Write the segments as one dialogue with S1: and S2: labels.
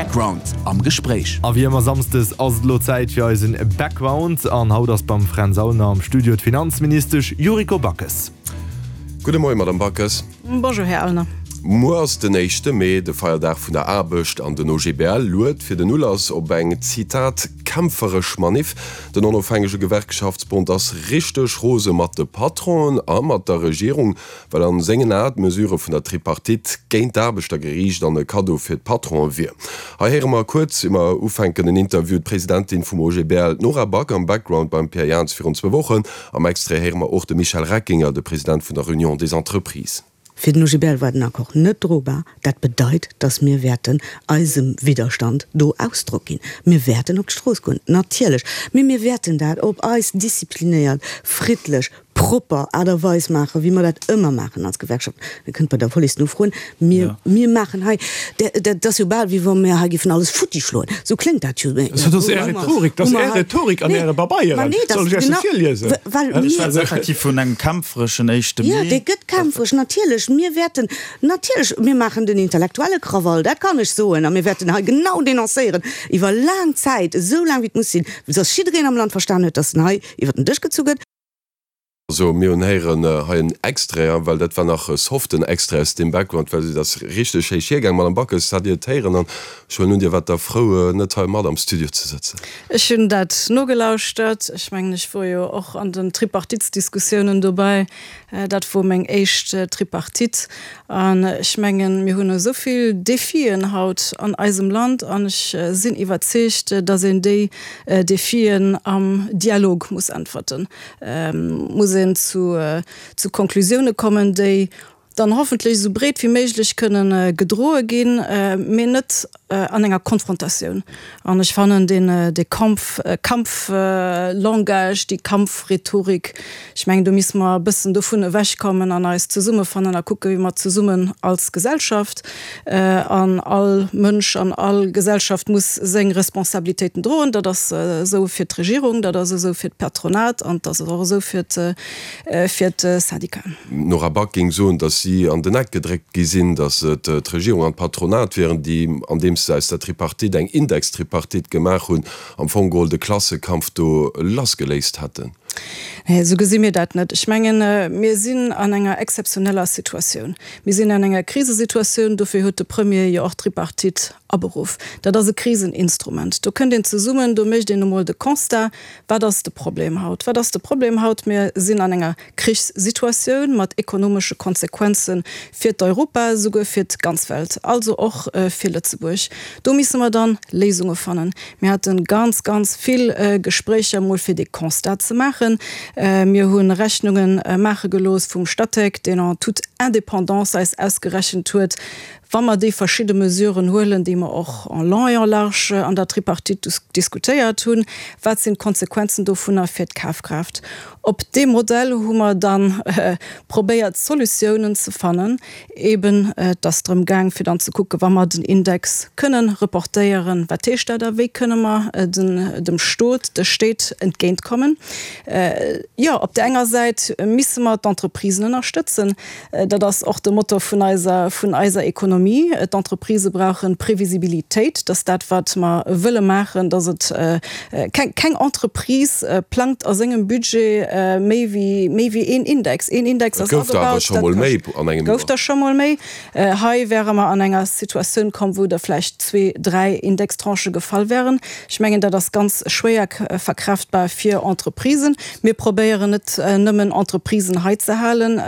S1: Background am Gespréich.
S2: A wéi ëmmer Samsdes ass et elo Zäit fir eisen Background an haut ass beim Fränz Aulner am Studio d'Finanzministesch Yuriko Backes.
S3: Gudde Moien, Madame Backes.
S4: Bonjour, Här Aulner.
S3: Muer ass den éischte Mee, de Feierdag vun der Aarbecht, an den OGBL luet fir den Ulass op eng, Zitat, kämpferesch Maniff. Den onofhängege Gewerkschaftsbond ass richteg rose mat de Patronen a mat der Regierung, well an sengen Ae d'Mesure vun der Tripartite géint d'Aarbechter geriicht an e Kaddo fir d'Patronen wier. Hei héiere mer kuerz ier mer ufänken en Interview, d'Presidentin vum OGBL, d'Nora Back am Background beim Pierre Jans virun zwou Wochen. Am Extrait héiere mer och de Michel Reckinger, de President vun der Union des Entreprises.
S5: Fir den OGBL war den Accord net drobar. Dat bedeit, datt mir wäerten eisem Widderstand do Ausdrock ginn. Mir wäerten op d'Strooss goen, natierlech, mee mir wäerten dat op eis disziplinéiert, friddlech, propper Aart a Weis maachen, wéi mer dat ëmmer maachen als Gewerkschaft. Dir kënnt bei der Police nofroen. Mir, mir maachen hei, dat ass jo bal, wéi wa mir hei géifen alles futti schloen. Esou kléngt dat jo.
S6: Dat ass Är Rhetorik, dat ass Är Rhetorik an Äre Pabeieren. Soll ech Iech se virliesen?
S5: Well
S7: Ech schwätze effektiv vun engem kämpfereschen éischte
S5: Mee. Jo, dee gëtt kämpferesch, natierlech. Mir wäerten, natierlech, mir maachen den intellektuelle Krawall, dat kann ech soen. A mir wäerten hei genau denoncéieren, iwwer laang Zäit, esou laang wéi et muss sinn, dass jiddereen am Land verstan huet, dass en hei iwwer den Dësch gezu gëtt.
S3: Also mir hunn héieren hei en Extrait, well dat war nach e soften Extrait aus deem Background, well et ass richteg héich hiergaang. Madame Backes, hat Dir et héieren? An ech huelen un, Dir waart da frou, net hei mat am Studio ze sëtzen.
S4: Ech hunn dat nogelauschtert. Ech mengen, ech wor jo och an den Tripartitsdiskussiounen dobäi. Dat wor meng éischt Tripartite. An ech mengen, mir hunn esou vill Defien haut an eisem Land an ech sinn iwwerzeegt, datt een déi Defien am Dialog muss äntwerten, muss een zu Konklusioune kommen, déi dann hoffentlech esou breet wéi méiglech kënnen gedroe ginn, mee net an enger Konfrontatioun. An ech fannen deen, dee Kampf, Kampflangage, déi Kampfrhetorik, ech mengen, do misste mer e bëssen dovun ewechkommen an eis zesummefannen a kucken, wéi mer zesummen als Gesellschaft, an all Mënsch an all Gesellschaft muss seng Responsabilitéiten droen, dat ass esou fir d'Regierung, dat ass esou fir d'Patronat an dat ass och esou fir d'Syndicaten.
S3: D'Nora Back géing soen, datt si an den Eck gedréckt gi sinn, datt et d'Regierung an d'Patronat wieren, déi, andeems se aus der Tripartite eng Indextripartite gemaach hunn, am Fong geholl de Klassekampf do lassgeléist hätten.
S4: Nee, esou gesi mir dat net. Ech mengen, mir sinn an enger exzeptioneller Situatioun. Mir sinn an enger Krisesituatioun. Dofir huet de Premier jo och d'Tripartite aberuff. Dat ass e Kriseninstrument. Do kënnt een zesummen, do mécht een emol de Constat, Wat ass de Problem haut? Wat ass de Problem haut? Mir sinn an enger Krichssituatioun mat ekonomesche Konsequenze fir d'Europa, esouguer fir d'ganz Welt, also och fir Lëtzebuerg. Do misse mer dann Léisunge fannen. Mir hate ganz, ganz vill Gespréicher emol fir dee Constat ze maachen. Mir hu Rechnunge maache gelooss vum Statec, deen en toute indépendance eis ausgerechent huet, Wa mer déi verschidde Mesuren huelen, déi mer och en long et en large an der Tripartite diskutéiert hunn, wat sinn d'Konsequenzen dovunner fir d'Kafkraaft? Op deem Modell hu mer da probéiert Solutiounen ze fannen. Eben, et ass drëm gaang fir dann ze kucken, wa mer den Index kënnen reportéieren, wat heescht dat a wéi kënne mer dem Stot, de Stéit entgéintkommen? Jo, op där enger Säit misse mer d'Entreprisen ënnerstëtzen. Dat ass och de Motor vun eiser, vun eiser Ekonomie. D'Entreprisë brauche Previsibilitéit, dass dat, wat mer wëlle maachen, dass et keng, keng Entreprise plangt a sengem Budget méi wéi, méi wéi een Index. Een Index
S3: Et
S4: ass
S3: gouf der awer
S4: agebaut,
S3: scho
S4: dat
S3: mol méi
S4: kascht.
S3: an engem
S4: Gouf
S3: Joer.
S4: der scho mol méi. Hei wäre mer an enger Situatioun komm, wou der vläicht zwee, dräi Indextranchë gefall wären. Ech mengen, dat ass ganz schwéier verkraftbar fir Entreprisen. Mir probéieren net nëmmen Entreprisen hei ze halen,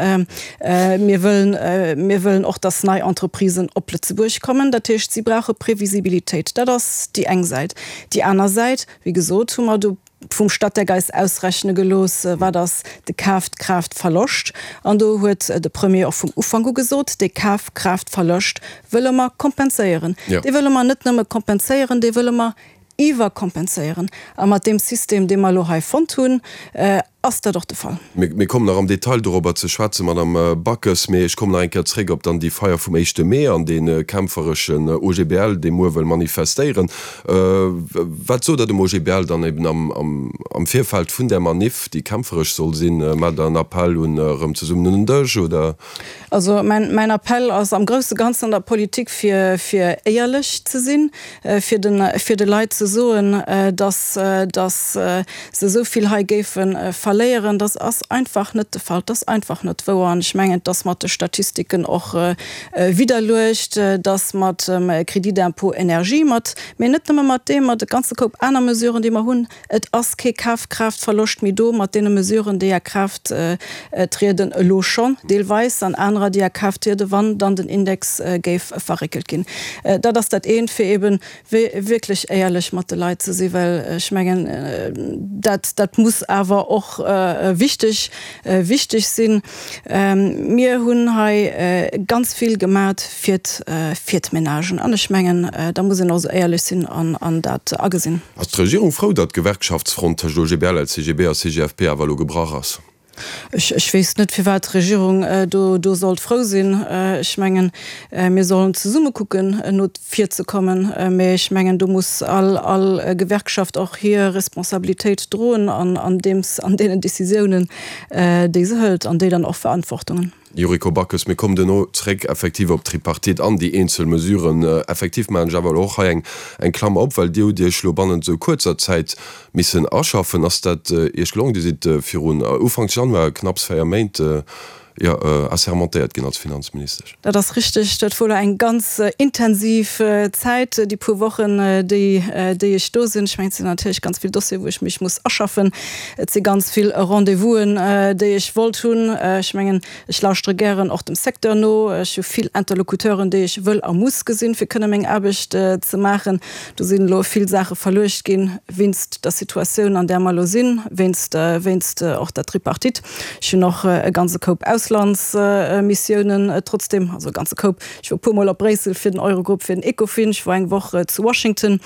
S4: mir wëllen, mir wëllen och, dass nei Entreprisen op Lëtzebuerg kommen. Dat heescht, si brauche Previsibilitéit. Dat ass déi eng Säit. Déi aner Säit, wéi gesot, hu mer do vum Statec eis ausrechne gelooss, wat ass de Kafkraaftverloscht. An do huet de Premier och vum Ufank u gesot, dee Kafkraaftverloscht wëlle mer kompenséieren. Dee wëlle mer net nëmme kompenséieren, dee wëlle mer iwwerkompenséieren. A mat deem System, dee mer elo hei fonnt hunn. Ass dat och de Fall?
S3: Mir kommen nach am Detail dorobber ze schwätzen, Madame Backes, mee ech kommen nach eng Kéier zréck op dann déi Feier vum éischte Mee an dee kämpfereschen OGBL, dee muer wëll manifestéieren. Wat sot Der dem OGBL dann eben am Virfeld vun där Maniff, déi kämpferesch soll sinn? Maacht Der en Appell un erëm zesummen un den Dësch, oder?
S4: Also mäin Appell ass am grousse Ganzen an der Politik, fir éierlech ze sinn, fir de fir de Leit ze soen, datt datt se esou vill hei géife verléieren. Dat ass einfach net de Fall, dat ass einfach net wouer. An ech mengen, et ass mat de Statistiken och widderluecht, datt mat dem Crédit d'impôt énergie, mat, mee net nëmme mat deem, mat e ganze Koup aner Mesuren, déi mer hunn, Et ass kee Kafkraaftverloscht méi do mat deene Mesuren, déi a Kraaft trieden, elo schonn deelweis, an anerer, déi a Kraaft trieden, wann dann den Index géif verréckelt ginn. Dat ass dat eent, fir eebe wierklech éierlech mat de Leit ze sinn, well ech mengen, dat, dat muss awer och wichteg, wichteg sinn. Mir hunn hei ganz vill gemat fir d'Menagen an ech mengen, da muss een och esou éierlech sinn an dat agesinn.
S3: Ass d'Regierung frou, datt d'Gewerkschaftsfront tëscht OGBL, LCGB a CGFP awer elo gebrach ass?
S4: Ech weess net, firwat d'Regierung do sollt frou sinn. Ech mengen, mir sollen zesumme kucken, no vir ze kommen. Mä ech mengen, do muss all Gewerkschaft och hir Responsabilitéit droen an deenen Décisiounen, déi se hëlt, an déi dann och Verantwortungen.
S3: Yuriko Backes, Mir kommen duerno zréck effektiv op d'Tripartite an déi eenzel Mesuren. Effektiv maachen ech awer elo och hei eng eng Klammer op, well Dir hutt Iech elo bannent esou kuerzer Zäit missen aschaffen. Ass dat Iech gelongen? Dir sidd virun Ufanks Januar, knapps 4 Méint, jo, assermentéiert ginn als Finanzministesch.
S4: Dat ass richteg. Dat wor elo eng ganz intensiv Zäit, déi puer Wochen, déi déi ech do sinn. Ech mengen, et sinn natierlech ganz vill Dossieren, wou ech mech muss aschaffen. Et si ganz vill Rendez-vousen, déi ech wollt hunn. Ech mengen, ech lauschtere gären och dem Secteur no. Ech hu vill Interlocuteuren, déi ech wëll a muss gesinn, fir kënne meng Aarbecht ze maachen. Do sinn elo vill Saache verluecht ginn, wéinst der Situatioun, an där mer elo sinn, wéinst wéinst och der Tripartite. Ech hunn och e ganze Koup Auslandsmissiounen trotzdem, also e ganze Koup. Ech wor e puermol op Bréissel fir den Eurogrupp, fir den Ecofin, ech wor eng Woch zu Washington.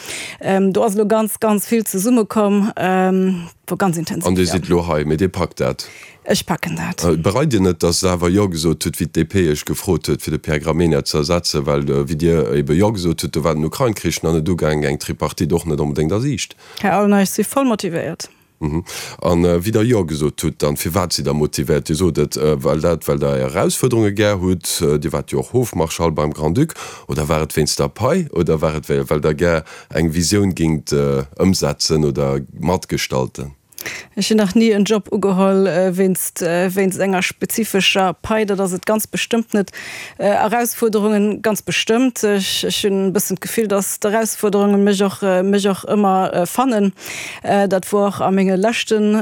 S4: Do ass elo ganz, ganz vill zesummekomm, wor ganz intensiv,
S3: An Dir sidd elo hei, mee Dir packt dat?
S4: Ech packen dat.
S3: Bereit Dir net, datt Der awer Jo gesot hutt, wéi d'DP Iech gefrot huet, fir de Pierre Gramegna ze ersetzen? Well wéi Dir ebe Jo gesot hutt, do war den Ukrain-Krich nach net ugaangen, eng Tripartite och net onbedéngt a Siicht.
S4: Här Aulner, ech si voll motivéiert.
S3: An wéi Der Jo gesot hutt, dann firwat sidd Der motivéiert? Dir sot et, well dat, well Der Är Erausfuerderunge gär hutt, Dir waart jo och Hofmarschall beim Grand-Duc, oder war et wéinst der Pai, oder war et well Der gär eng Visioun géingt ëmsetzen oder matgestalten?
S4: Ech hunn nach ni en Job ugeholl wéinst wéinst enger spezifescher Pai, dat ass et ganz bestëmmt net. Erausfuerderungen, ganz bestëmmt. Ech hunn e bëssen d'Gefill, datt d'Erausfuerderunge mech och mech och ëmmer fannen. Dat wor och a menge leschten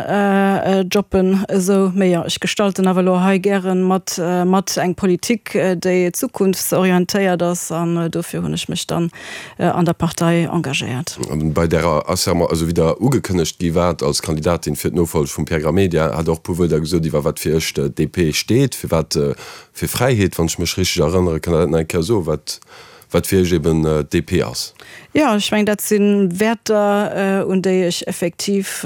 S4: Jobben esou. Mee jo, ech gestalten awer elo hei gäre mat mat eng Politik, déi zukunftsorientéiert ass an dofir hunn ech mech dann an der Partei engagéiert.
S3: Bei därer Asserment, also wéi Der ugekënnegt gi waart als Kandidatin fir d'Nofolleg vum Pierre Gramegna, hat Der och e puer Wuerder gesot iwwer wat fir Iech d'DP steet, firwat fir Fräiheet, wann ech mech richteg erënnere. Kënnt Der dat nach eng Kéier soen, wat wat fir Iech eben d'DP ass?
S4: Jo, ech mengen, dat si Wäerter, un déi ech effektiv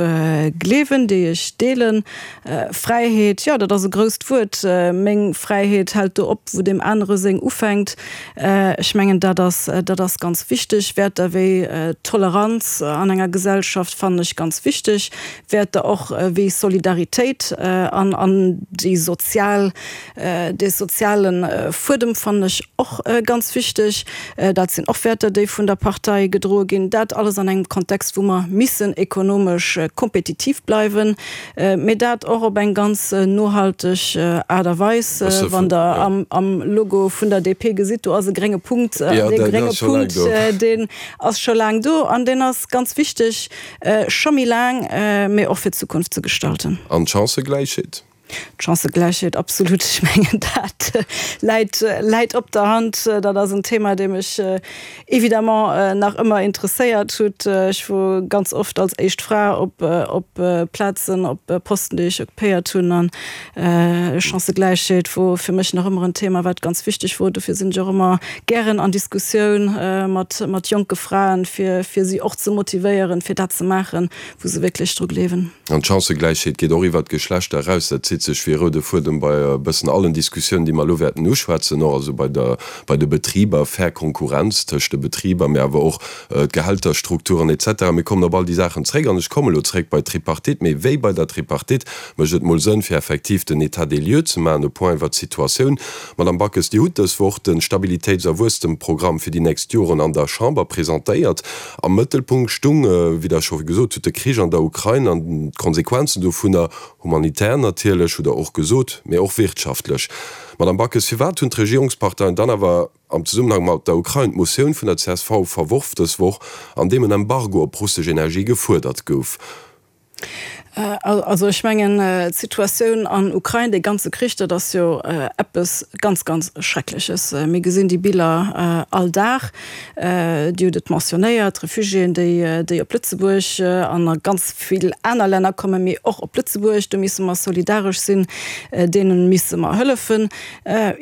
S4: gleewen, déi ech deelen. Fräiheet, jo, dat ass e grousst Wuert. Meng Fräiheet hält do op, wou deem anere seng ufänkt. Ech mengen, dat ass, dat ass ganz wichteg. Wäerter wéi Toleranz an enger Gesellschaft fannen ech ganz wichteg. Wäerter och wéi Solidaritéit an, an déi sozial, Dee soziale Fuedem fannen ech och ganz wichteg. Dat sinn och Wäerter, déi vun der Partei gedroe ginn. Dat alles an engem Kontext, wou mer missen ekonomesch kompetitiv bleiwen, mee dat och op eng ganz nohalteg Aart a Weis. Wann Der am Logo vun der DP gesitt, do ass e grénge Punkt. An dee grénge Punkt, deen ass scho laang do an deen ass ganz wichteg, scho méi laang, mee och fir d'Zukunft ze gestalten.
S3: An d'Chancëgläichheet?
S4: D'Chancëgläichheet, absolut. Ech mengen, dat läit, läit op der Hand. Dat ass en Thema, dee mech évidemment nach ëmmer interesséiert hutt. Ech wor ganz oft als éischt Fra op, op Plazen, op Posten, déi ech occupéiert hunn. An Chancëgläichheet wor fir mech nach ëmmer en Thema, wat ganz wichteg wor. Dofir sinn ech och ëmmer gären an Diskussioun mat, mat jonke Fraen, fir, fir si och ze motivéieren, fir dat ze maachen, wou se wierklech dru gleewen.
S3: An d'Chancëgläichheet geet och iwwert d'Geschlechter eraus. Dat zitt sech wéi e roude Fuedem bei e bëssen allen Diskussiounen, déi mer elo wäerten uschwätzen, och also bei der, bei de Betriber, fair Konkurrenz tëscht de Betriber, mee awer och d'Gehälterstrukturen et cetera. Mir kommen op all déi Saachen zréck an ech komme elo zréck bei d'Tripartite. Mee wéi bei der Tripartite mécht et mol Sënn, fir effektiv den État des lieux ze maachen, e Point iwwert d'Situatioun. Madame Backes, Dir hutt dës Woch de Stabilitéits a Wuesstemprogramm fir déi nächst Joren an der Chamber presentéiert. Am Mëttelpunkt stung, wéi Der scho gesot hutt, de Krich an der Ukrain an d'Konsequenzen dovunner, humanitär natierlech, hutt Der och gesot, mee och wirtschaftlech. Madame Backes, firwat hunn d'Regierungsparteien dann awer am Zesummenhang mat der Ukrain d'Motioun vun der csv verworf dës Woch, an deem en Embargo op russesch Energie gefuerdert gouf?
S4: Also ech mengen, d'Situatioun an Ukrain, dee ganze Krich, dat ass jo eppes ganz, ganz Schreckleches. Mir gesinn déi Biller all Dag. Dir hutt et mentionnéiert, d'Refugiéen, déi, déi op Lëtzebuerg an a ganz vill aner Länner kommen, mee och op Lëtzebuerg. Do misse mer solidaresch sinn, deene misse mer hëllefen.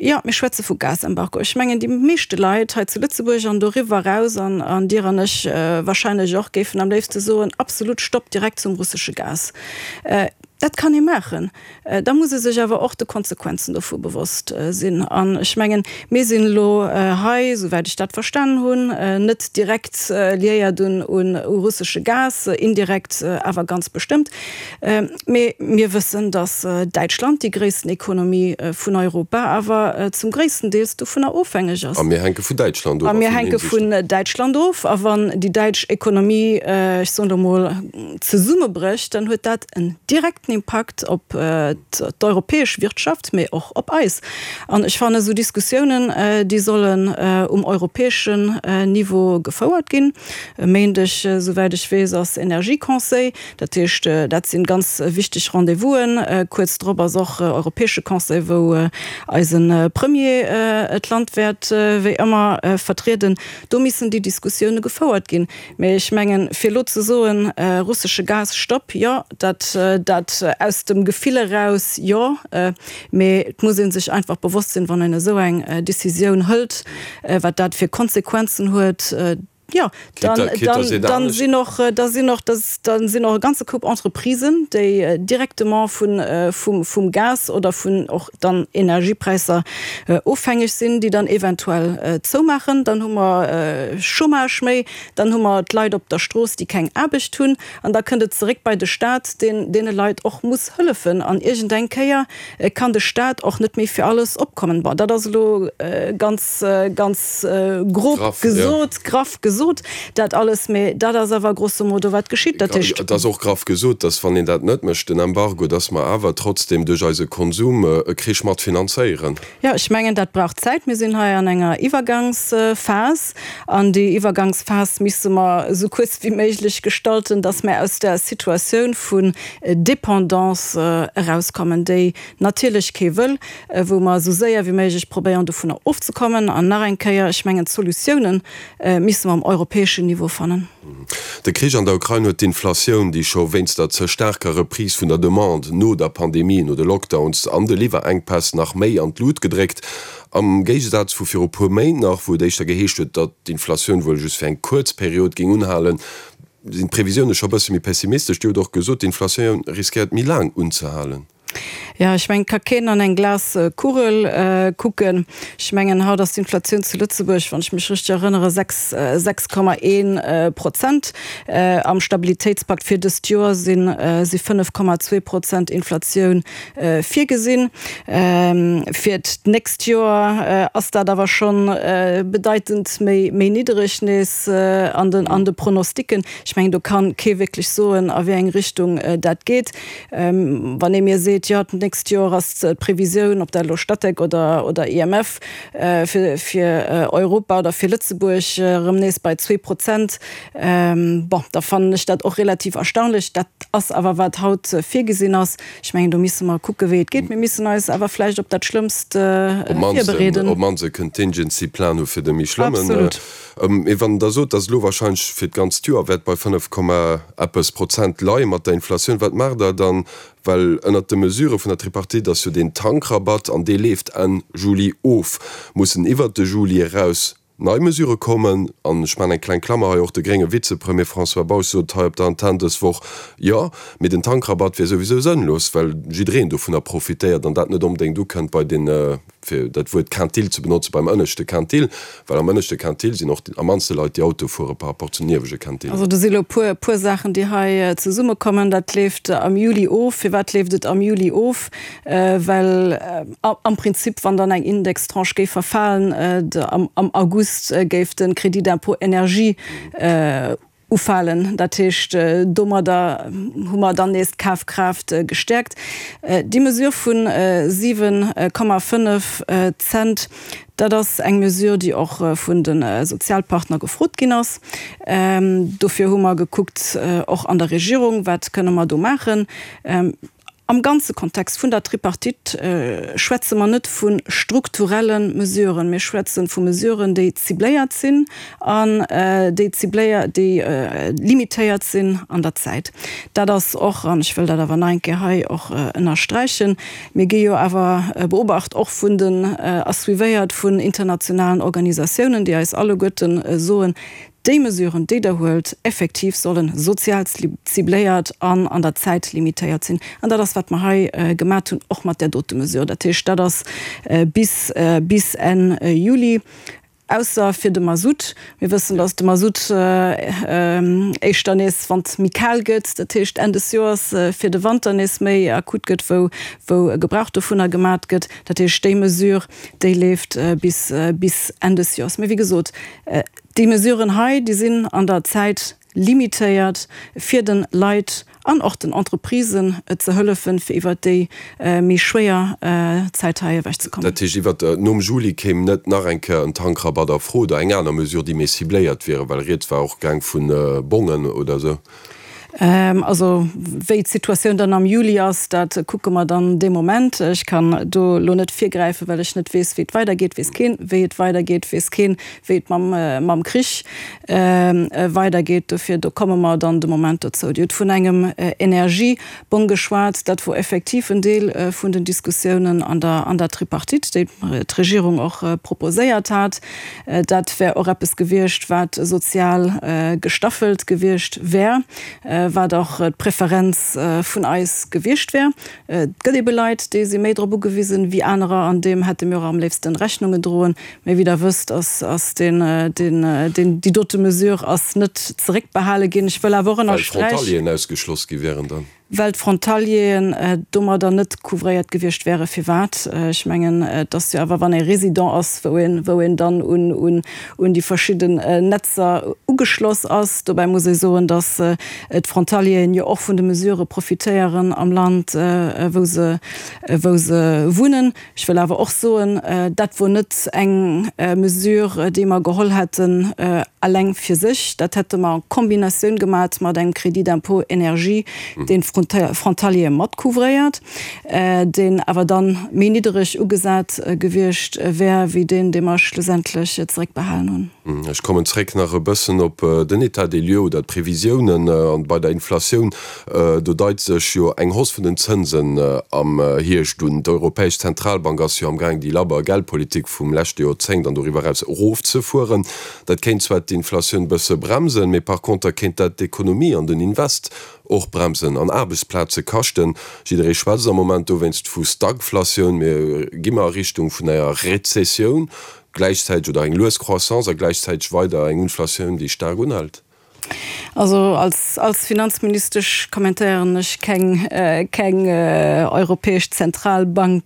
S4: Jo, mir schwätze vu Gasembargo. Ech mengen, déi meeschte Leit hei zu Lëtzebuerg an doriwwer eraus, an Dir an ech wahrscheinlech och, géifen am léifste soen, absolut Stopp direkt zum russesche Gas. Dat kann ee maachen. Da muss ee sech awer och de Konsequenzen dovu bewosst sinn. An ech mengen, mir sinn elo hei, souwäit ech dat verstanen hunn, net direkt liéiert un russesche Gas, indirekt awer ganz bestëmmt. Mee mir wëssen, datt Däitschland, déi gréissten Ekonomie vun Europa, awer zum gréissten Deels dovunner ofhängeg ass.
S3: A mir hänke vun Däitschland
S4: of a mir hänke vun Däitschland of. A wann déi däitsch Ekonomie, ech soen elo mol, zesummebrécht, dann huet dat en direkten Impakt op d'europäesch Wirtschaft, mee och op eis. An ech fannen, esou Diskussiounen, déi sollen um europäeschen Niveau gefouert ginn. E Méindeg, esouwäit ech weess, ass Energieconseil. Dat heescht, dat sinn ganz wichteg Rendez-vousen. Kuerz drop ass och Europäesche Conseil, wou eise Premier d'Land wäert wéi ëmmer vertrieden. Do missen déi Diskussioune gefouert ginn. Mee ech mengen, fir elo ze soen, russesche Gas, Stopp, jo, dat dat aus dem Gefill eraus, jo. Mee et muss ee sech einfach bewosst sinn, wann een esou eng Decisioun hëlt, wat dat fir Konsequenzen huet. Jo, dann, dann, dann sinn och, da sinn och, da sinn och e ganze Koup Entreprisen, déi directement vun, vum, vum Gas oder vun och dann Energiepräisser ofhängeg sinn, déi dann eventuell zoumaachen. Dann hu mer Chômage méi, dann hu mer d'Leit op der Strooss, déi keng Aarbecht hunn. An da kënnt et zeréck bei de Stat, deen deene Leit och muss hëllefen. An iergendeng Kéier kann de Stat och net méi fir alles opkommen. Bon, dat ass elo ganz, ganz grob gesot, graff gesot, dat alles, mä dat ass awer grosso modo, wat geschitt. Dat heescht.
S3: Et ass och graff gesot, dass, wann een dat net mécht, den Embargo, dass mer awer trotzdem duerch eise Konsum e Krich mat finanzéieren.
S4: Jo, ech mengen, dat brauch Zäit. Mir sinn hei an enger Iwwergangsphas. An déi Iwwergangsphas misse mer esou kuerz wéi méiglech gestalten, dass mer aus där Situatioun vun Dépendance erauskommen, déi natierlech kee wëll, wou mer esou séier wéi méiglech probéieren, dovunner ofzekommen. An nach eng Kéier, ech mengen, d'Solutiounen misse mer um europäeschen Niveau fannen.
S3: De Krich an der Ukrain huet d'Inflatioun, déi scho wéinst der ze staarker Reprise vun der Demande no der Pandemie, no de Lockdowns an de Liwwerenkpäss nach méi an d'Lut gedréckt. Am Géigesaz vu viru puer Méint nach, wou et éischter geheescht huet, datt d'Inflatioun wuel just fir eng kuerz Period géing unhalen, sinn d'Previsioune scho bësse méi pessimistesch. Dir hutt och gesot, d'Inflatioun riskéiert méi laang unzehalen.
S4: Jo, ech mengen, et ka keen an eng Glaskugel kucken. Ech mengen, haut ass d'Inflatioun zu Lëtzebuerg, wann ech mech richteg erënnere, 6, 6,1 Prozent. Am Stabilitéitspakt fir dëst Joer si 5,2 Prozent Inflatioun virgesinn. Fir d'nächst Joer ass dat awer scho bedeitend méi niddereg nees an de Pronosticken. Ech mengen, do ka kee wierklech soen, a wéi eng Richtung dat geet. Wann ee mir seet. seet, jo d'nächst Joer ass d'Previsioun, ob dat elo Statec oder oder IMF, fir fir Europa oder fir Lëtzebuerg erëm nees bei 2%, bon, da fannen ech dat och relativ erstaunlech. Dat ass awer wat haut virgesinn ass. Ech mengen, do misse mer kucke wéi et geet. Mir missen eis awer vläicht op dat Schlëmmst virbereeden.
S3: Op d'mannst e Contingency Plan hu fir de méi schlëmmen. Absolut. Mee wann Der sot, datt elo wahrscheinlech fir d'ganzt Joer wäert bei 5 Komma eppes Prozent leie mat der Inflatioun, wat maacht Der dann? Well ënnert de Mesurë vun der Tripartite ass jo deen Tankrabatt, an dee leeft Enn Juli of, mussen iwwert de Juli eraus nei Mesurë kommen. An ech maachen eng kleng Klammer hei, och de grénge Vizepremier François Bausch sot hei op der Antenn dës Woch, jo, mee den Tankrabatt wier souwisou sënnlos, well jiddereen dovunner profitéiert an dat net onbedéngt ukënnt bei den, fir dat Wuert Quintil ze benotzen, beim ënneschte Quintil, well am ënneschte Quintil sinn och am mannste Leit, déi Auto fuere par rapport zum niewege Quintil.
S4: Also do si lo puer, puer Saachen, déi hei zesummekommen. Dat leeft am Juli of. Firwat leeft et am Juli of? Well am Prinzip, wann dann eng Indextranche géif verfalen, am August géif de Crédit d'impôt énergie ufalen. Dat heescht, domadder hu mer dann nees d'Kafkraaft gestäerkt. Déi Mesure vu 7,5 Cent, dat ass eng Mesure, déi och vun de Sozialpartner gefrot ginn ass. Dofir hu mer gekuckt, och an der Regierung, wat kënne mer do maachen. Am ganze Kontext vun der Tripartite schwätze mer net vu strukturelle Mesuren. Mir schwätze vu Mesuren, déi cibléiert sinn an déi cibléiert, déi limitéiert sinn an der Zäit. Dat ass och, an ech wëll dat awer nach eng Kéier hei och ënnersträichen, mir gi jo awer beobacht och vun den a suivéiert vun internationalen Organisatiounen, déi eis alleguerten soen, Déi Mesuren, déi Der huelt, effektiv solle sozial cibléiert an an der Zäit limitéiert sinn. An dat ass, wat mer hei gemat hunn, och mat där dote Mesure. Dat heescht, dat ass bis bis Enn Juli, ausser fir de Masutt. Mir wëssen, dass de Masutt éischter nees, wann et méi kal gëtt, dat heescht Enn des Joers, fir de Wanter nees méi akut gëtt, wou wou Gebrauch dovunner gemat gëtt. Dat heescht, déi Mesure, déi leeft bis bis Enn des Joers. Mee wéi gesot, Déi Mesuren hei, déi sinn an der Zäit limitéiert, fir de Leit an och den Entreprisen ze hëllefen, fir iwwert déi méi schwéier Zäit hei ewechzekommen.
S3: Dat heescht, iwwert nom Juli kéim net nach eng Kéier en Tankrabatt a Fro oder eng aner Mesure, déi méi cibléiert wiere, well rieds war och gaang vu Bongen oder esou.
S4: Also wéi d'Situatioun dann am Juli ass, dat kucke mer dann dee Moment. Ech kann do elo net virgräifen, well ech net weess, wéi et weidergeet. Weess keen, wéi et weidergeet, weess keen, wéi et mam Krich weidergeet. Dofir, do komme mer dann de Moment dozou. Dir hutt vun engem Energiebong geschwat. Dat wor effektiv en Deel vun den Diskussiounen an der Tripartite, déi d'Regierung och proposéiert hat. Dat wär och eppes gewiescht, wat sozial gestaffelt gewiescht wär, wat och d'Preferenz vun eis gewiescht wär. Et gëtt ebe Leit, déi si méi drop ugewisen wéi anerer, an deem hätte mir och am léifsten Rechnung gedroen. Mee wéi Der wësst, ass deen, deen, déi dote Mesure ass net zeréckbehale ginn. Ech wëll awer och
S3: ënnersträichen. Well d'Frontalieren ausgeschloss gi wären dann.
S4: Well d'Frontalieren domadder net couvréiert gewiescht wären. Firwat? Ech mengen, et ass jo awer, wann ee Résident ass, wou een, wou een dann un, un, un déi verschidden Netzer ugeschloss ass. Dobäi muss ee soen, datt d'Frontalieren jo och vun de Mesurë profitéieren am Land, wou se, wou se wunnen. Ech wëll awer och soen, dat wor net eng Mesure, déi mer geholl hätten eleng fir sech. Dat hätte mer en Kombinatioun gemat mat engem Crédit d'impôt énergie, deen d'Frontaliere mat couvréiert, deen awer da méi niddereg ugesat gewiescht wär wéi deen, dee mer schlussendlech zeréckbehalen hunn.
S3: Ech kommen zréck nach e bëssen op den État des lieux oder d'Previsiounen. An bei der Inflatioun, do deit sech jo eng Hausse vun den Zënsen am Hierscht un. D'Europäesch Zentralbank ass jo amgaang déi labber Geldpolitik vum leschte Joerzéngt an doriwwer eraus erofzefueren. Dat kéint zwar d'Inflatioun bësse bremsen, mee par conter kéint dat d'Ekonomie an den Invest och bremsen an Aarbechtsplaze kaschten. Jidderee schwätzt am Moment dowéinst vu Stagflatioun. Mir gi mer a Richtung vun enger Rezessioun. Gläichzäiteg, oder eng lues Croissance a gläichzäiteg weider eng Inflatioun, déi staark unhält?
S4: Also als, als Finanzministesch kommentéieren ech keng, keng Europäesch Zentralbank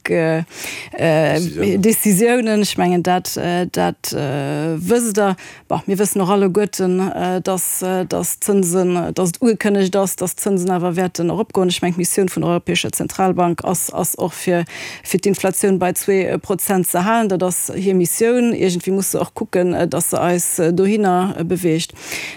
S4: Décisiounen. Ech mengen dat, dat wësst Der. Bon, mir wëssen och alleguerten, dass, dass d'Zënsen, dass et ugekënnegt ass, dass d'Zënsen awer wäerten eropgoen. Ech mengen, d'Missioun vun der Europäescher Zentralbank ass, ass och fir, fir d'Inflatioun bei 2% ze halen. Dat ass hir Missioun. Iergendwéi muss se och kucken, dass se eis dohinner beweegt.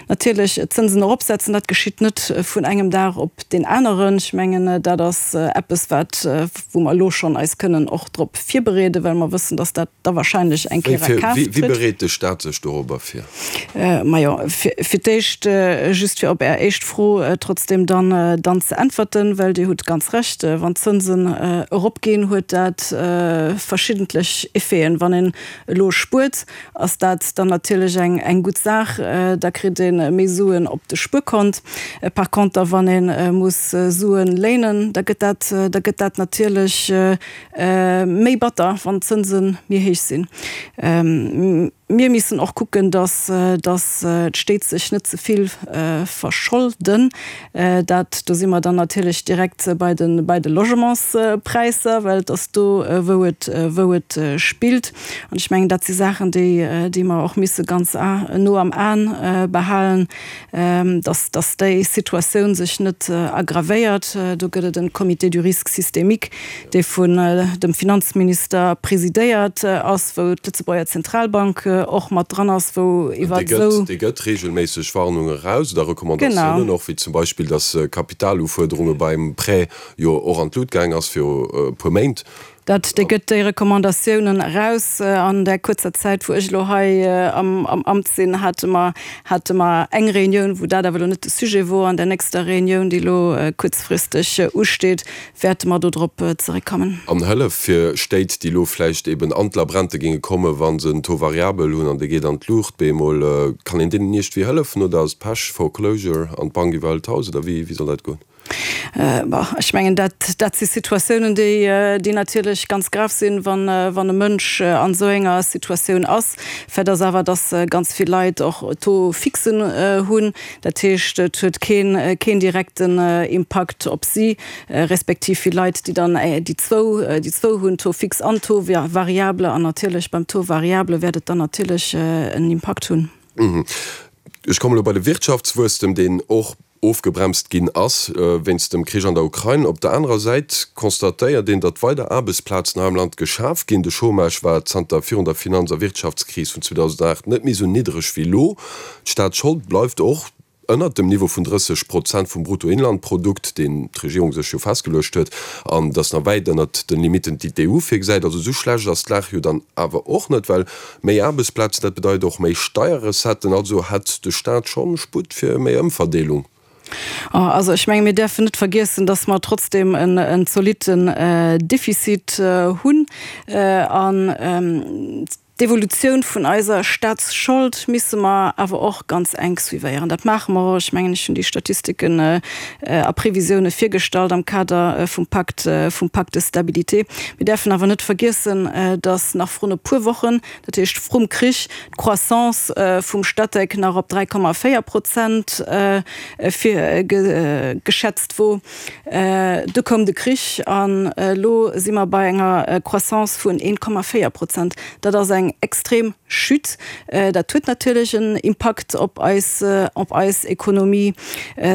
S4: Natierlech, d'Zënsen eropsetzen, dat geschitt net vun engem Dag op deen aneren. Ech mengen, dat ass eppes, wat, wou mer elo schonn eis kënnen och drop virbereeden, well mer wëssen, dass dat da wahrscheinlech eng Kéier a Kraaft
S3: trëtt. Wéi bereet de Staat sech dorobber vir?
S4: Majo, fir d'éischt, just fir op Är éischt Fro trotzdem dann, dann ze äntwerten, well Dir hutt ganz Recht, wann d'Zënsen eropginn, huet dat verschiddentlech Effeten. Wann een elo spuert, ass dat dann natierlech eng, eng gutt Saach, da kritt ee méi Suen op de Spuerkont. Par conter, wann ee muss Suen léinen, da gëtt dat, da gëtt dat natierlech Méi batter, wann d'Zënse méi héich sinn. Mir missen och kucken, datt d'Stéit sech net ze vill verscholden. Dat, do si mer dann natierlech direkt bei de, bei de Logementspräisser, well et ass do, wou et, wou et spillt. An ech mengen, dat si Saachen, déi, déi mer och misse ganz no am Aen behalen. dass dass déi Situatioun sech net aggravéiert. Do gëtt et en Comité du risque systémique, dee vun dem Finanzminister presidéiert ass, wou d'Lëtzebuerger Zentralbank och mat dran ass, wou iwwer
S3: esou. Dee gëtt regelméisseg Warnunge eraus oder Recommandatiounen och, wéi zum Beispill, dass Kapitalufuerderunge beim Prêt jo och an d'Lut gaang ass viru e puer Méint.
S4: Dat, dee gëtt déi Recommandatiounen eraus. An där kuerzer Zäit, wou ech elo hei am Amt sinn, hate mer, hate mer eng Reunioun, wou dat awer elo net de Sujet wor. An där nächster Reunioun, déi elo kuerzfristeg usteet, wäerte mer do drop zeréckkommen.
S3: An Hëllef fir Stéit, déi elo vläicht eben an d'Labrente géinge kommen, wa se en Taux variabel hunn an dee geet an d'Luucht bemol. Kann een deenen iergendwéi hëllefen oder ass et Pech, Foreclosure an d'Bank iwwerhëlt d'Haus oder wéi soll dat goen?
S4: Bon, ech mengen, dat, dat si Situatiounen, déi, déi natierlech ganz grav sinn, wann, wann e Mënsch an esou enger Situatioun ass. Fait ass awer, dass ganz vill Leit och Taux fixen hunn. Dat heescht, et huet keen, keen direkten Impakt op si, respektiv vill Leit, déi dann déi zwou, déi zwou hunn, Taux fixe an Taux variable. An natierlech beim Taux variable wäert et dann natierlech en Impakt hunn.
S3: Ech kommen elo bei de Wirtschaftswuesstem, deen och ofgebremst ginn ass wéinst dem Krich an der Ukrain. Op der anerer Säit constatéiert een, datt weider Aarbechtsplazen hei am Land geschaf ginn. De Chômage war zanter virun der Finanz a Wirtschaftskris vun 2008 net méi esou niddereg wéi elo. D'Staatsschold bleift och ënnert dem Niveau vun 30 Prozent vum Bruttoinlandprodukt, deen d'Regierung sech jo festgeluecht huet, an et ass nach wäit ënnert den Limitten, déi d'EU virgesäit. Also esou schlecht ass d'Lag jo dann awer och net, well Méi Aarbechtsplazen, dat bedeit och méi Steierrecetten. Also hätt de Staat schonn Sputt fir méi Ëmverdeelung.
S4: Also ech menge mir däerfen net vergiessen, datt mer trotzdeem en zolitten Defizit hunn. An d'Evolutioun vun eiser Staatsschold misse mer awer och ganz enk suivéieren. Dat maache mer och. Ech mengen, ech hunn déi Statistiken a Previsioune virgestallt am Kader vum Pakt, vum Pacte de stabilité. Mir däerfen awer net vergiessen, datt nach vrun e puer Wochen, dat heescht vrum Krich, d'Croissance vum Statec nach op 3,4 Prozent geschätzt wor. Du koum de Krich an elo si mer bei enger Croissance vun 1,4 Prozent. Dat ass eng extrem Chute. Dat huet natierlech en Impakt op eis, op eis Ekonomie,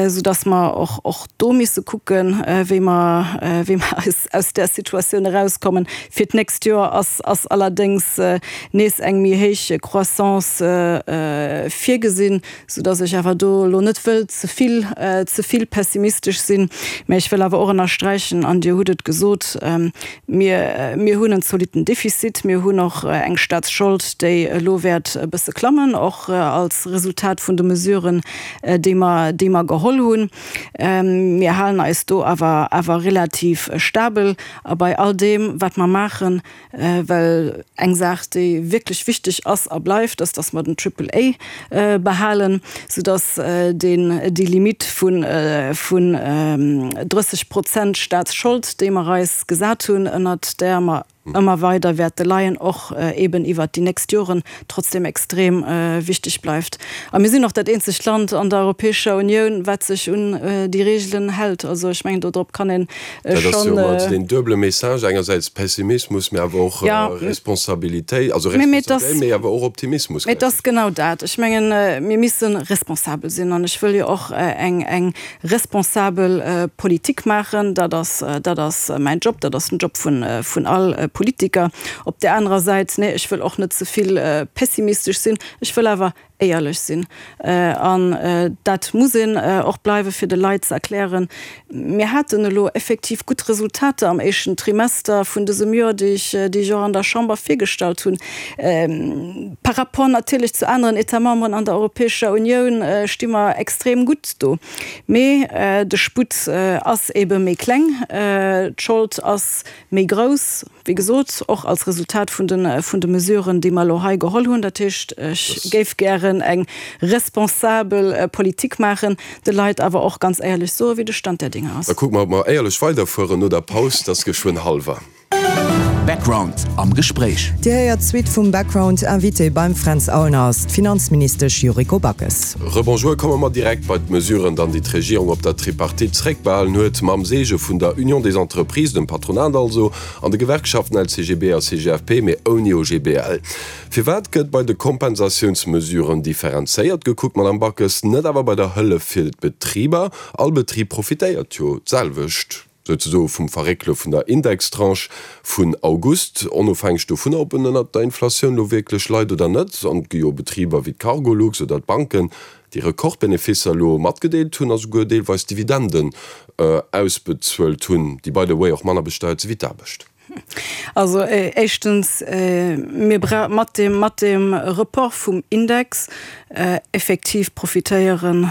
S4: soudass mer och, och do misse kucken, wéi mer, wéi mer eis aus där Situatioun erauskommen. Fir d'nächst Joer ass, ass allerdéngs nees eng méi héich Croissance virgesinn, soudass ech awer do elo net wëll ze vill, ze vill pessimistesch sinn. Mä ech wëll awer och ënnersträichen, an Dir hutt et gesot, Mir, mir hunn en zolitten Defizit, mir hunn och eng Staatsschold, déi elo wäert e bësse klammen, och als Resultat vun de Mesuren, déi mer, déi mer geholl hunn. Mir halen eis do awer, awer relativ stabel. A bei all deem, wat mer maachen, well eng Saach, déi wierklech wichteg ass a bleift, ass, dass mer den Triple A behalen, soudass deen, déi Limite vun, vun 30 Prozent Staatsschold, déi mer eis gesat hunn, ënnert där mer. Ëmmer weider wäerte leien, och eeben iwwert déi nächst Joren trotzdem extrem wichteg bleift. A mir sinn och dat eenzegt Land an der Europäescher Unioun, wat sech un déi Reegelen hält. Also ech mengen, dodrop kann ee
S3: schonn. Dat ass jo ëmmer deen duebele Message, engersäits Pessimismus, mee awer och Responsabilitéit, also Responsabilitéit, mee awer och Optimismus.
S4: Mee et ass genau dat. Ech mengen, mir misse responsabel sinn. An ech wëll jo och eng Responsabel Politik maachen, dat ass, dat ass mäin Job, dat ass den Job vun, vun all Politiker. Op där anerer Säit, nee, ech wëll och net ze vill pessimistesch sinn, ech wëll awer éierlech sinn. An dat muss een och bleiwen, fir de Leit ze erklären, mir haten elo effektiv gutt Resultater am éischten Trimester vun dësem Joer, déi ech, déi ech och an der Chamber virgestallt hunn. Par rapport natierlech zu aneren États-memberen an der Europäescher Unioun sti mer extrem gutt do. Mee de Sputt ass ebe méi kleng, d'Schold ass méi grouss, wéi gesot, och als Resultat vun de Mesuren, déi mer elo hei geholl hunn. Dat heescht, ech géif gären eng responsabel Politik maachen, de Leit awer och ganz éierlech soen, wéi de Stand der Dinge ass.
S3: Da kucke mer, ob mer éierlech weiderfueren no der Paus. Et ass geschwënn hallwer.
S1: Background am Gespréich.
S8: Dir héiert d'Suite vum Background. Invité beim Fränz Aulner ass d'Finanzministesch Yuriko Backes.
S3: Rebonjour, komme mer direkt bei d'Mesuren dann, déi d'Regierung op der Tripartite zréckbehalen huet, mam Seege vun der Union des Entreprises, dem Patronat also, an de Gewerkschaften LCGB a CGFP, mee ouni OGBL. Firwat gëtt bei de Kompensatiounsmesuren differenzéiert gekuckt, Madame Backes, net awer bei der Hëllef fir d'Betriber? All Betrib profitéiert jo d'selwecht. souzesoe vum Verréckele vun der Indextranche vun August, onofhängeg dovunner, ob en ënnert der Inflatioun elo wierklech leit oder net. An et gi jo Betriber wéi d'Cargolux oder d'Banken, déi Rekordbeneficer elo matgedeelt hunn a souguer deelweis Dividenden ausbezuelt hunn, déi by the way och manner besteiert si wéi d'Aarbecht.
S4: Also éischtens, mir bra mat deem, mat deem Report vum Index effektiv profitéieren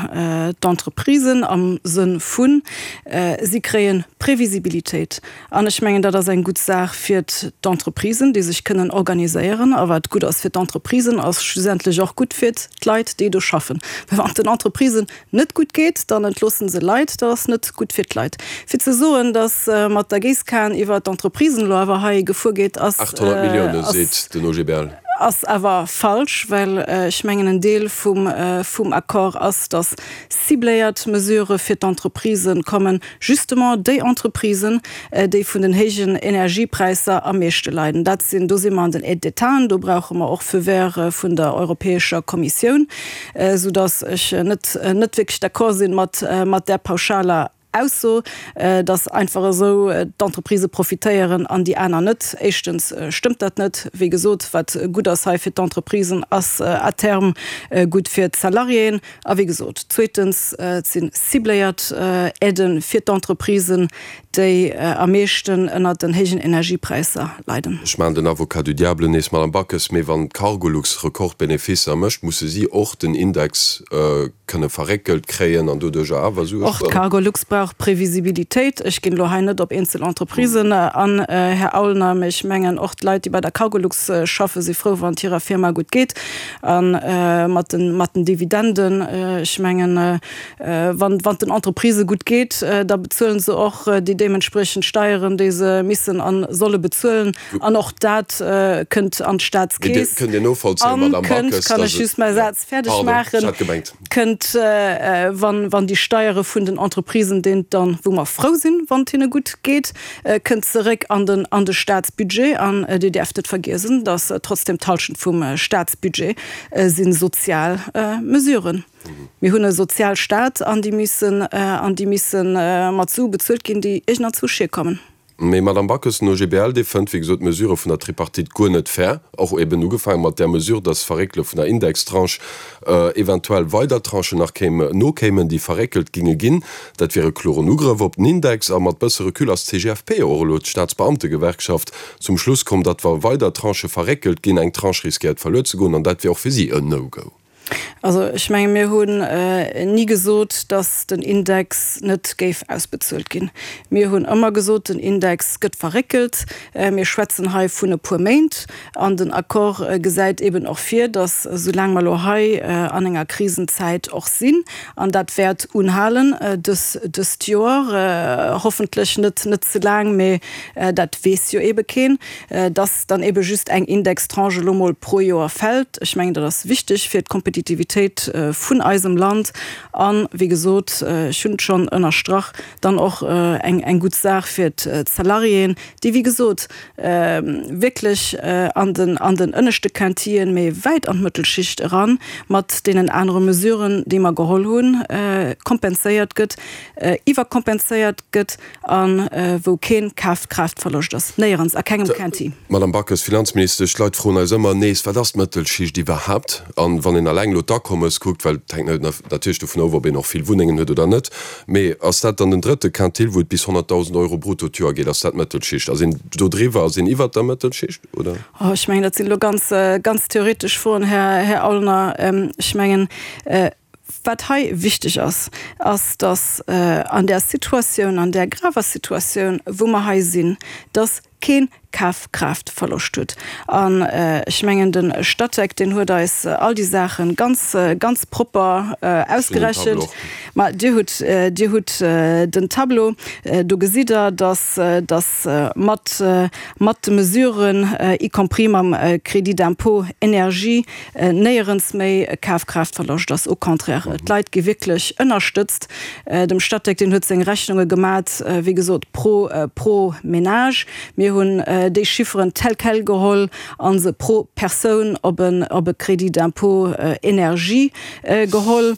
S4: d'Entreprisen am Sënn vun, si kréie Previsibilitéit. An ech mengen, dat ass eng gutt Saach fir d'Entreprisen, déi sech kënnen organiséieren. A wat gutt ass fir d'Entreprisen, ass schlussendlech och gutt fir d'Leit, déi do schaffen. Well wann et den Entreprisen net gutt geet, dann entloossen se Leit, dat ass net gutt fir d'Leit. Fir ze soen, datt mat der Géisskan iwwer d'Entreprisen elo awer hei gefuer geet, ass,
S3: 800 Millioune seet den OGBL.
S4: ass awer falsch, well ech mengen en Deel vum, vum Accord ass, datt cibléiert Mesurë fir d'Entreprisen kommen, justement déi Entreprisen, déi vun den héijen Energiepräisser am meeschte leiden. Dat sinn, do si mer an den Aides d'Étaten, do brauche mer och Feu vert vun der Europäescher Kommissioun. Sou dass ech net net wierklech d'accord sinn mat mat där pauschaler Ausso, dass einfach esou d'Entreprisë profitéieren an déi aner net. Éischtens stëmmt dat net. Wéi gesot, wat gutt ass hei fir d'Entreprisen, ass à terme gutt fir d'Salariéen. A wéi gesot, zweetens, et si cibléiert Aidë fir d'Entreprisen, déi am meeschten ënnert den héijen Energiepräisser leiden.
S3: Ech maachen den Avocat du diable nees, Madame Backes, mee wann d'Cargolux Rekordbeneficer mécht, musse si och den Index kënne verréckelt kréien an doduercher awer Sue
S4: Och spueren. d'Cargolux brauch Previsibilitéit. Ech ginn elo hei net op eenzel Entreprisen an, Här Aulner, mee ech mengen och d'Leit, déi bei der Cargolux schaffen, si frou, wann et hirer Firma gutt geet. A mat den Dividenden, ech mengen, Wann et den Entreprisë gutt geet, da bezuelen se och déi deementspriechend Steieren, déi se missen a solle bezuelen. An och dat kënnt an d'Staatskeess.
S3: Kënnt Dir novollzéien, Madamm
S4: Backes, kann ech just mäi Saz fäerdeg maachen? Kënnt, wann déi Steiere vun den Entreprisen, deen dann, wou mer frou sinn, wann et hinne gutt geet, kënnt zeréck an den an de Staatsbudget. An Dir däerft net vergiesen, datt trotzdem d'Halschent vum Staatsbudget si sozial Mesuren. Mir hunn e Sozialstaat an déi missen, an déi misse mat Sue bezuelt ginn, déi iergendanzwousch hierkommen.
S3: Mee, Madamm Backes, den OGBL, dee fënnt, wéi gesot, d'Mesure vun der Tripartite guer net fair, och eben ugefaange mat där Mesure, dass d'Verréckele vun der Indextranche eventuell weider Tranchen nach kéim, nokéimen, déi verréckelt ginge ginn. Dat wier e kloren Ugrëff op den Index. A mat bësse Recul ass d'CGFP, och elo d'Staatsbeamtegewerkschaft, zum Schluss komm, datt wa weider Tranchë verréckelt ginn, eng Tranche riskéiert verluer ze goen, an dat wier och fir si en No-Go.
S4: Also ech menge mir hunn ni gesot, datt den Index net géif ausbezuelt ginn. Mir hunn ëmmer gesot, den Index gëtt verréckelt. Mir schwätzen hei vun e puer Méint. An den Accord gesäit eben och vir, datt esoulaang mer elo hei an enger Krisenzäit och sinn, an dat wäert unhalen dëst Joer, hoffentlech net net ze laang, mee dat weess jo ebe keen, dass dann ebe just eng Indextranche elo mol pro Joer fält. Ech mengen, dat ass wichteg fir d'Kompetitivitéit vun eisem Land an, wéi gesot, ech hunn et schonn ënnerstrach, dann och eng eng gutt Saach fir d'Salariéen, déi, wéi gesot, wierklech an den an den ënneschte Quintillen, mee wäit an d'Mëttelschicht eran, mat deenen anere Mesuren, déi mer geholl hunn, kompenséiert gëtt, iwwerkompenséiert gëtt. A wou kee Kafkraaftverloscht ass, néierens, a kengem Quinti.
S3: Madame Backes, Finanzministesch, d'Leit froen eis ëmmer nees, Wat ass d'Mëttelschicht iwwerhaapt? An wann een alleng elo d'Akommes kuckt, well et hänkt natierlech dovun of, ob een och vill Wunnengen huet oder net, mee ass dat dann den drëtte Quintil, wou et bis 100.000 Euro brutto d'Joer geet, ass dat d'Mëttelschicht? Ass een do driwwer, ass een iwwert der Mëttelschicht, oder?
S4: Oh, ech mengen, dat sinn elo ganz, ganz theoretesch Froen, Här Aulner. Ech mengen, Wat hei wichteg ass, ass, dass an där Situatioun, an där graver Situatioun, wou mer hei sinn, dass kee Kafkraaftverloscht huet. An ech mengen, de Statec, deen huet eis all déi Saache ganz, ganz propper ausgerechent. Ma Dir hutt, Dir hutt den Tableau. Do gesitt Der, dass, dass mat, mat de Mesuren, y compris mam Crédit d'impôt énergie, néierens méi Kafkraaftverloscht ass. Au contraire, d'Leit gi wierklech ënnerstëtzt. Dem Statec, deen huet seng Rechnunge gemat, wéi gesot, pro pro Ménage. Mir hunn déi Chifferen tel quel geholl a se pro Persoun op en op e Crédit d'impôt énergie geholl.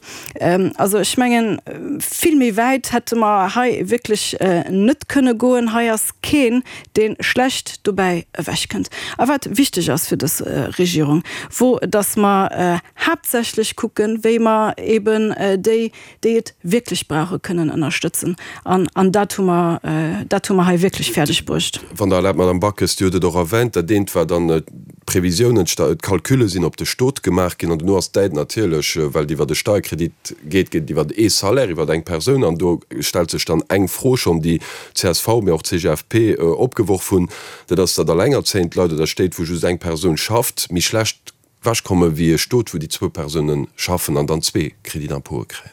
S4: Also ech mengen, vill méi wäit hätte mer hei wierklech net kënne goen. Hei ass keen, dee schlecht dobäi ewechkënnt. A wat wichteg ass fir dës Regierung, wor, datt mer haaptsächlech kucken, wéi mer eben déi, déi et wierklech brauchen, kënnen ënnerstëtzen. An, an dat hu mer, dat hu mer hei wierklech fäerdeg bruecht.
S3: Wann Der erlaabt, Madame Backes, Dir hutt et och erwänt, dat eent war dann d'Previsiounen, d'Calculle sinn op de Stot gemaach ginn an dono ass d'Aide natierlech, well et iwwert e Steierkredit geet, geet et iwwert ee Salaire, iwwert eng Persoun. An do stellt sech dann eng Fro schonn, déi csv, mee och CGFP opgeworf hunn, dat ass, datt allengerzéiend Leit oder Stéit, wou just eng Persoun schafft, méi schlecht ewechkomme wéi e Stot, wou déi zwou Persoune schaffen an dann zwee Crédit d'impôte kréien.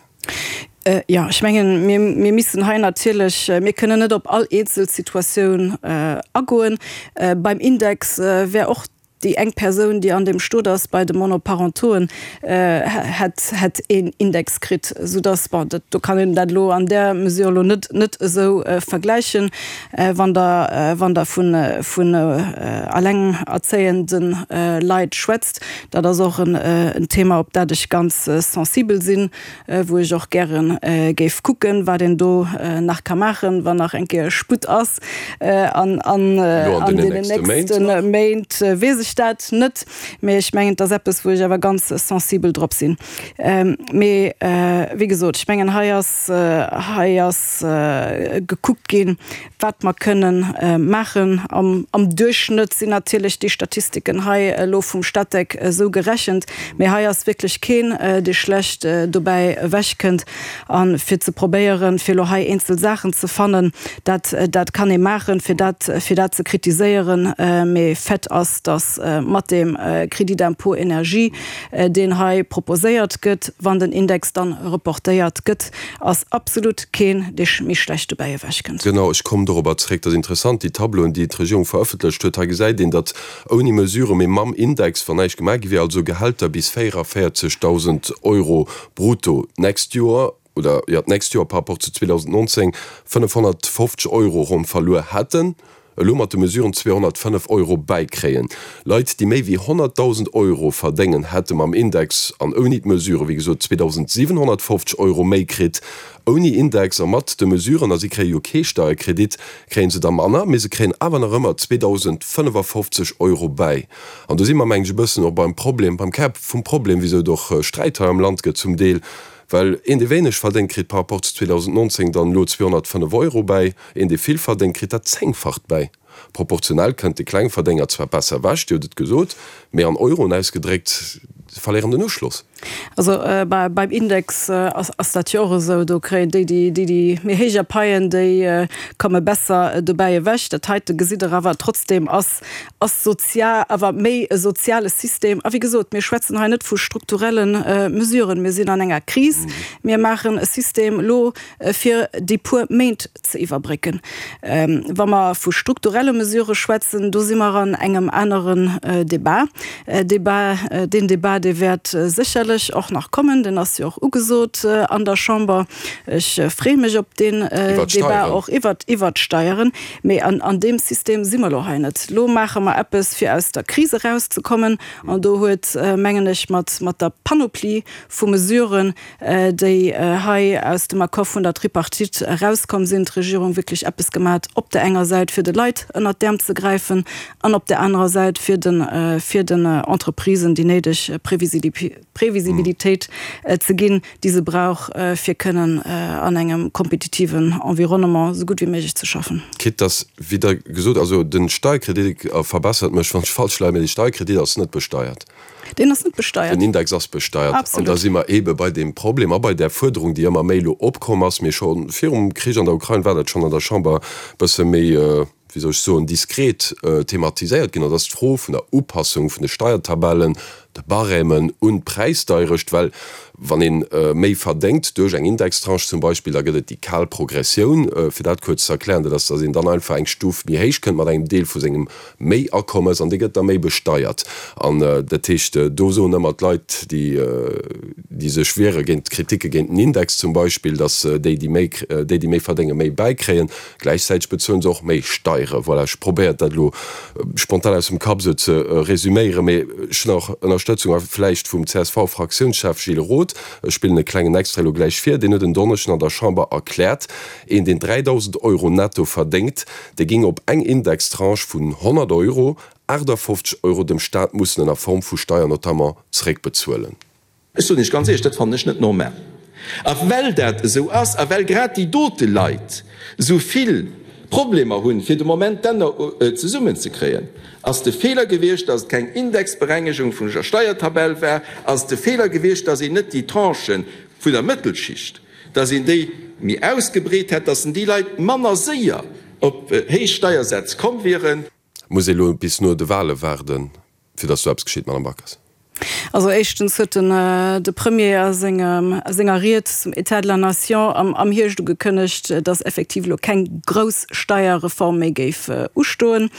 S4: Jo, ech mengen, mir, mir missen hei natierlech, mir kënnen net op all eenzel Situatioun agoen. Beim Index wär och Déi eng Persoun, déi an deem Stot ass, bei de Monoparentoen, hätt, hätt een Index kritt, soudass, bon, dat, do kann een dat elo an där Mesure elo net, net esou vergläichen. Wann Der, wann Der vun, vun allengerzéiende Leit schwätzt, dat ass och en, en Thema, op dat ech ganz sensibel sinn, wou ech och gäre géif kucken, wat een do nach ka maachen, wann nach eng Kéier Sputt ass. An an deenen nächste Méint weess ech dat net, mee ech mengen, et ass eppes, wou ech awer ganz sensibel drop sinn. Mee wéi gesot, ech mengen, hei ass, hei ass gekuckt ginn, wat mer kënnen maachen. Am Duerchschnëtt sinn natierlech déi Statistiken hei elo vum Statec esou gerechent, mee hei ass wierklech keen, dee schlecht dobäi ewechkënnt. A fir ze probéieren, fir elo hei eenzel Saachen ze fannen, dat, dat kann ee maachen, fir dat, fir dat ze kritiséieren. Mee Fait ass, datt mat deem Crédit d'impôt énergie, deen hei proposéiert gëtt, wann den Index dann reportéiert gëtt, ass absolut keen, dee méi schlecht dobäi ewechkënnt.
S3: Genau, ech kommen dorobber zréck. Dat ass interessant, déi Tableauen, déi d'Regierung verëffentlecht huet. Hei gesäit een, datt ouni Mesurë, mee mam Index, wann näischt gemaach gi wier, also Gehälter bis 44.000 Euro brutto d'nächst Joer, oder jo, d'nächst Joer par rapport zu 2019, 550 Euro ronn verluer hätten. Elo mat de Mesuren 205 Euro bäikréien. Leit, déi méi wéi 100.000 Euro verdéngen, hätte mam Index an ouni d'Mesuren, wéi gesot, 2.750 Euro méi kritt. Ouni Index a mat de Mesuren, a si kréie jo kee Steierkredit, kréie se der manner, mee se kréien awer nach ëmmer 2.055 Euro bäi. An do si mer, mengen ech, e bëssen och beim Problem, beim Kär vum Problem, wisou et och Sträit hei am Land gëtt zum Deel, well een, dee wéineg verdéngt, kritt par rapport zu 2019 dann elo 205 Euro bäi. Een, dee vill verdéngt, kritt dat Zéngfacht bäi. Proportionell kënnt de Klengverdénger zwar besser ewech, Dir hutt et gesot, mee an Euroen ausgedréckt, se verléieren den Uschloss.
S4: Also beim Index ass dat jo och esou, do kréien déi, déi déi méi héijer paien, déi komme besser dobäi ewech. Dat heite gesitt Der awer trotzdem ass ass sozia awer méi e soziale System. A wéi gesot, mir schwätzen hei net vu strukturelle Mesuren. Mir sinn an enger Kris. Mir maachen e System elo, fir déi puer Méint ze iwwerbrécken. Wa mer vu strukturelle Mesurë schwätzen, do si mer an engem aneren Débat. Débat, deen Débat, dee wäert sécherlech och nach kommen, deen ass jo och ugesot an der Chamber. Ech freeë mech op deen Débat och iwwert d'Steieren. Mee an deem System si mer elo hei net. Elo maache mer eppes, fir aus der Kris erauszekommen. An do huet, mengen ech, mat der Panoplie vu Mesuren, déi hei aus dem Accord vun der Tripartite erauskomm sinn, d'Regierung wierklech eppes gemat, op der enger Säit fir de Leit ënnert d'Äerm ze gräifen an op der anerer Säit fir de fir den Entreprisen déi néideg Previsibilitéit ze ginn, déi se brauch, fir kënnen an engem kompetitiven Environnement esou gutt wéi méiglech ze schaffen.
S3: Quitte dass, wéi Der gesot, also de Steierkredit, a verbessert mech wann ech falsch leien, mä de Steierkredit ass net besteiert.
S4: Deen ass net besteiert.
S3: Den Index ass besteiert. Absolut. An da si mer eebe bei deem Problem a bei där Fuerderung, déi ëmmer méi elo opkomm ass, mee scho virum Krich an der Ukrain war dat schonn an der Chamber e bësse méi, wéi soll ech soen, diskret thematiséiert ginn, dat ass d'Fro vun der Upassung vun de Steiertabellen, de Barèmen un d'Präisdeierecht. Well wann ee méi verdéngt duerch eng Indextranche zum Beispill, da gëtt et déi kal Progressioun, fir dat kuerz ze erklären, dat ass, datt een dann einfach eng Stuf méi héich kënnt mat engem Deel vu sengem méi Akommes an dee gëtt da méi besteiert. An dat heescht, do soen ëmmer d'Leit, déi, déi sech wiere géint d'Kritike géint den Index zum Beispill, datt déi, déi méi, déi, déi méi verdéngen, méi bäikréien. Gläichzäiteg bezuelen se och méi Steiere. Voilà, ech probéiert dat elo spontan aus dem Kapp esou ze resüméieren, mee ech hunn och Ënnerstëtzung a vläicht vum CSV-Fraktiounschef Gilles Roth. Ech spillen e klengen Extrait elo gläich vir. Deen huet en Donneschden an der Chamber erkläert, een, deen 3.000 Euro netto verdéngt, Dee géing op eng Indextranche vun 100 Euro 58 Euro dem Staat mussen ënner Form vu Steier notamment zeréckbezuelen.
S9: Ech soen Iech ganz éierlech, dat fannen ech net normal. A well dat esou ass a well grad déi dote Leit esou vill Problemer hunn, fir de Moment d'Enner zesummenzekréien, ass de Feeler gewiescht, datt et keng Indexberengegung vun der Steiertabell war, ass et de Feeler gewiescht, datt een net déi Tranchen vun der Mëttelschicht, dass een déi méi ausgebreet hätt, dass déi Leit manner séier op héich Steiersätz komm wieren.
S3: Muss ee lo bis no de Wale waarden, fir dass do eppes geschitt, Madame Backes?
S4: Also éischtens huet den de Premier a sengem a senger Ried zum État de la Nation am am Hierscht ugekënnegt, dass effektiv elo keng grouss Steierreform méi géif ustoen,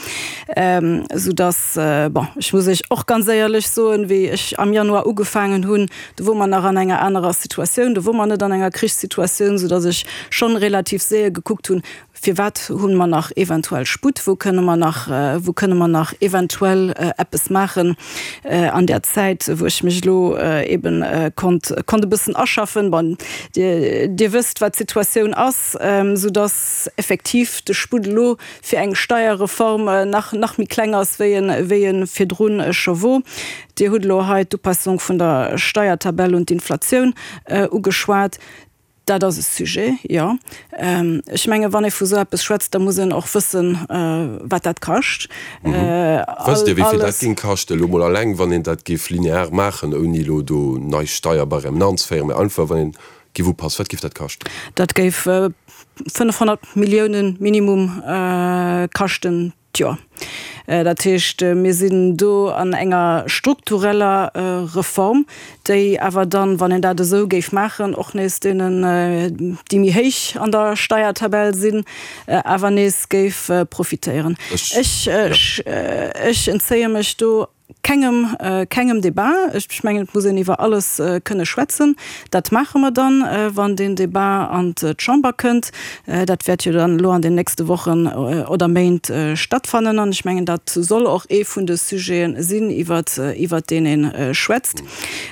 S4: soudass, bon, ech muss Iech och ganz éierlech soen, wéi ech am Januar ugefaangen hunn, Do wor mer nach an enger anerer Situatioun, do wor mer net an enger Krichssituatioun, soudass ech schonn relativ séier gekuckt hunn, Firwat hu mer nach eventuell Sputt, wou kënne mer nach, wou kënne mer nach eventuell eppes maachen an där Zäit, wou ech mech elo eeben konnt, konnt e bëssen aschaffen. Bon, Dir, Dir wësst, wat d'Situatioun ass, soudass effektiv de Sputt elo fir eng Steierreform nach, nach méi kleng ass, wéi en, wéi e virdrun scho wor. Dir hutt elo hei d'Upassung vun der Steiertabell un d'Inflatioun ugeschwat. Dat ass e Sujet, jo. Ech mengen, wann ee vu esou eppes schwätzt, da muss een och wëssen, wat dat kascht.
S3: Wësst Dir, wéi vill dat géing kaschten, elo mol alleng, wann een dat géif linear maachen, ouni elo do nei Steierbarèmen anzeféieren, mä einfach, wann een géif upassen, wat géif dat kaschten?
S4: Dat géif 500 Milliounen minimum kaschten. D'Joer. Dat heescht, mir sinn do an enger struktureller Reform, déi awer dann, wann een dat esou géif maachen, och nees deenen, déi méi héich an der Steiertabell sinn, awer nees géif profitéieren. Ech, ech entzéie mech do Kengem, kengem Débat. Ech mengen, et muss een iwwer alles kënne schwätzen. Dat maache mer dann, wann deen Débat an d'Chamber kënnt. Dat wäert jo dann elo an den nächste Wochen oder Méint stattfannen. An ech mengen, dat soll och ee vun de Sujete sinn, iwwer, iwwer deen ee schwätzt.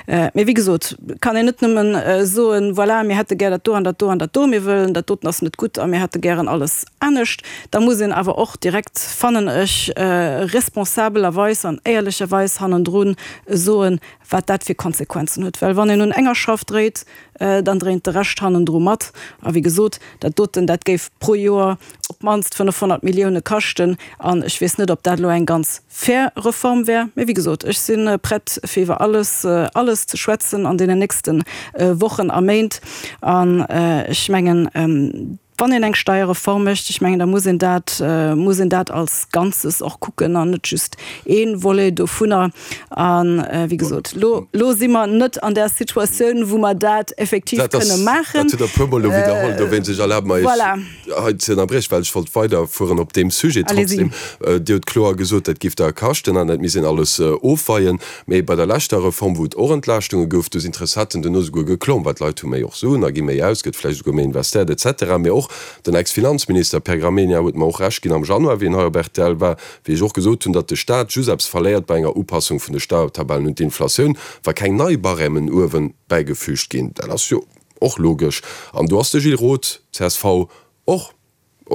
S4: Mee wéi gesot, kann een net nëmmen soen, Voilà, mir hätte gär dat do an dat do an dat do, mir wëllen, dat doten ass net gutt a mir hätte gären alles anescht. Da muss een awer och direkt, fannen ech, responsabelerweis an éierlecherweis. éierlecherweis hannendru soen, wat dat fir Konsequenzen huet. Well wann een un enger Schrauf dréit, dann dréint de Rescht hannendru mat. A wéi gesot, dat doten, dat géif pro Joer op d'mannst 500 Millioune kaschten. An ech weess net, ob dat elo eng ganz fair Reform wär. Mee wéi gesot, ech si prett, fir iwwer alles, alles ze schwätzen an deenen nächste Wochen a Méint. An ech mengen, Wann een eng Steierreform mécht, ech mengen, da muss een dat, muss een dat als Ganzes och kucken an net just ee Volet dovunner. A wéi gesot, lo, lo si mer net an där Situatioun, wou mer dat effektiv kënne maachen.
S3: Dat hutt Der e puermol elo widderholl. Dowéinst, ech erlabe mer, Iech hei ze ënnerbriechen, well ech wollt weiderfueren op deem Sujet trotzdem. Dir hutt kloer gesot, dat géif der kaschten an dat misst een alles ofweien. Mee bei der leschter Reform, wou et och Entlaaschtunge gouf, do sinn d'Recetten duerno souguer geklomm, well d'Leit hu méi och Suen a gi méi aus, gëtt vläicht esouguer méi investéiert et cetera. Mee och den Ex-Finanzminister Pierre Gramegna huet mer och Recht ginn am Januar, wéi en hei op rtl war, wéi ech och gesot hunn, datt de Staat just eppes verléiert bei enger Upassung vun de Steiertabellen un d'Inflatioun, wa keng nei Barèmen uewe bäigefüügt ginn. Dat ass jo och logesch. An do ass de Gilles Roth, csv, och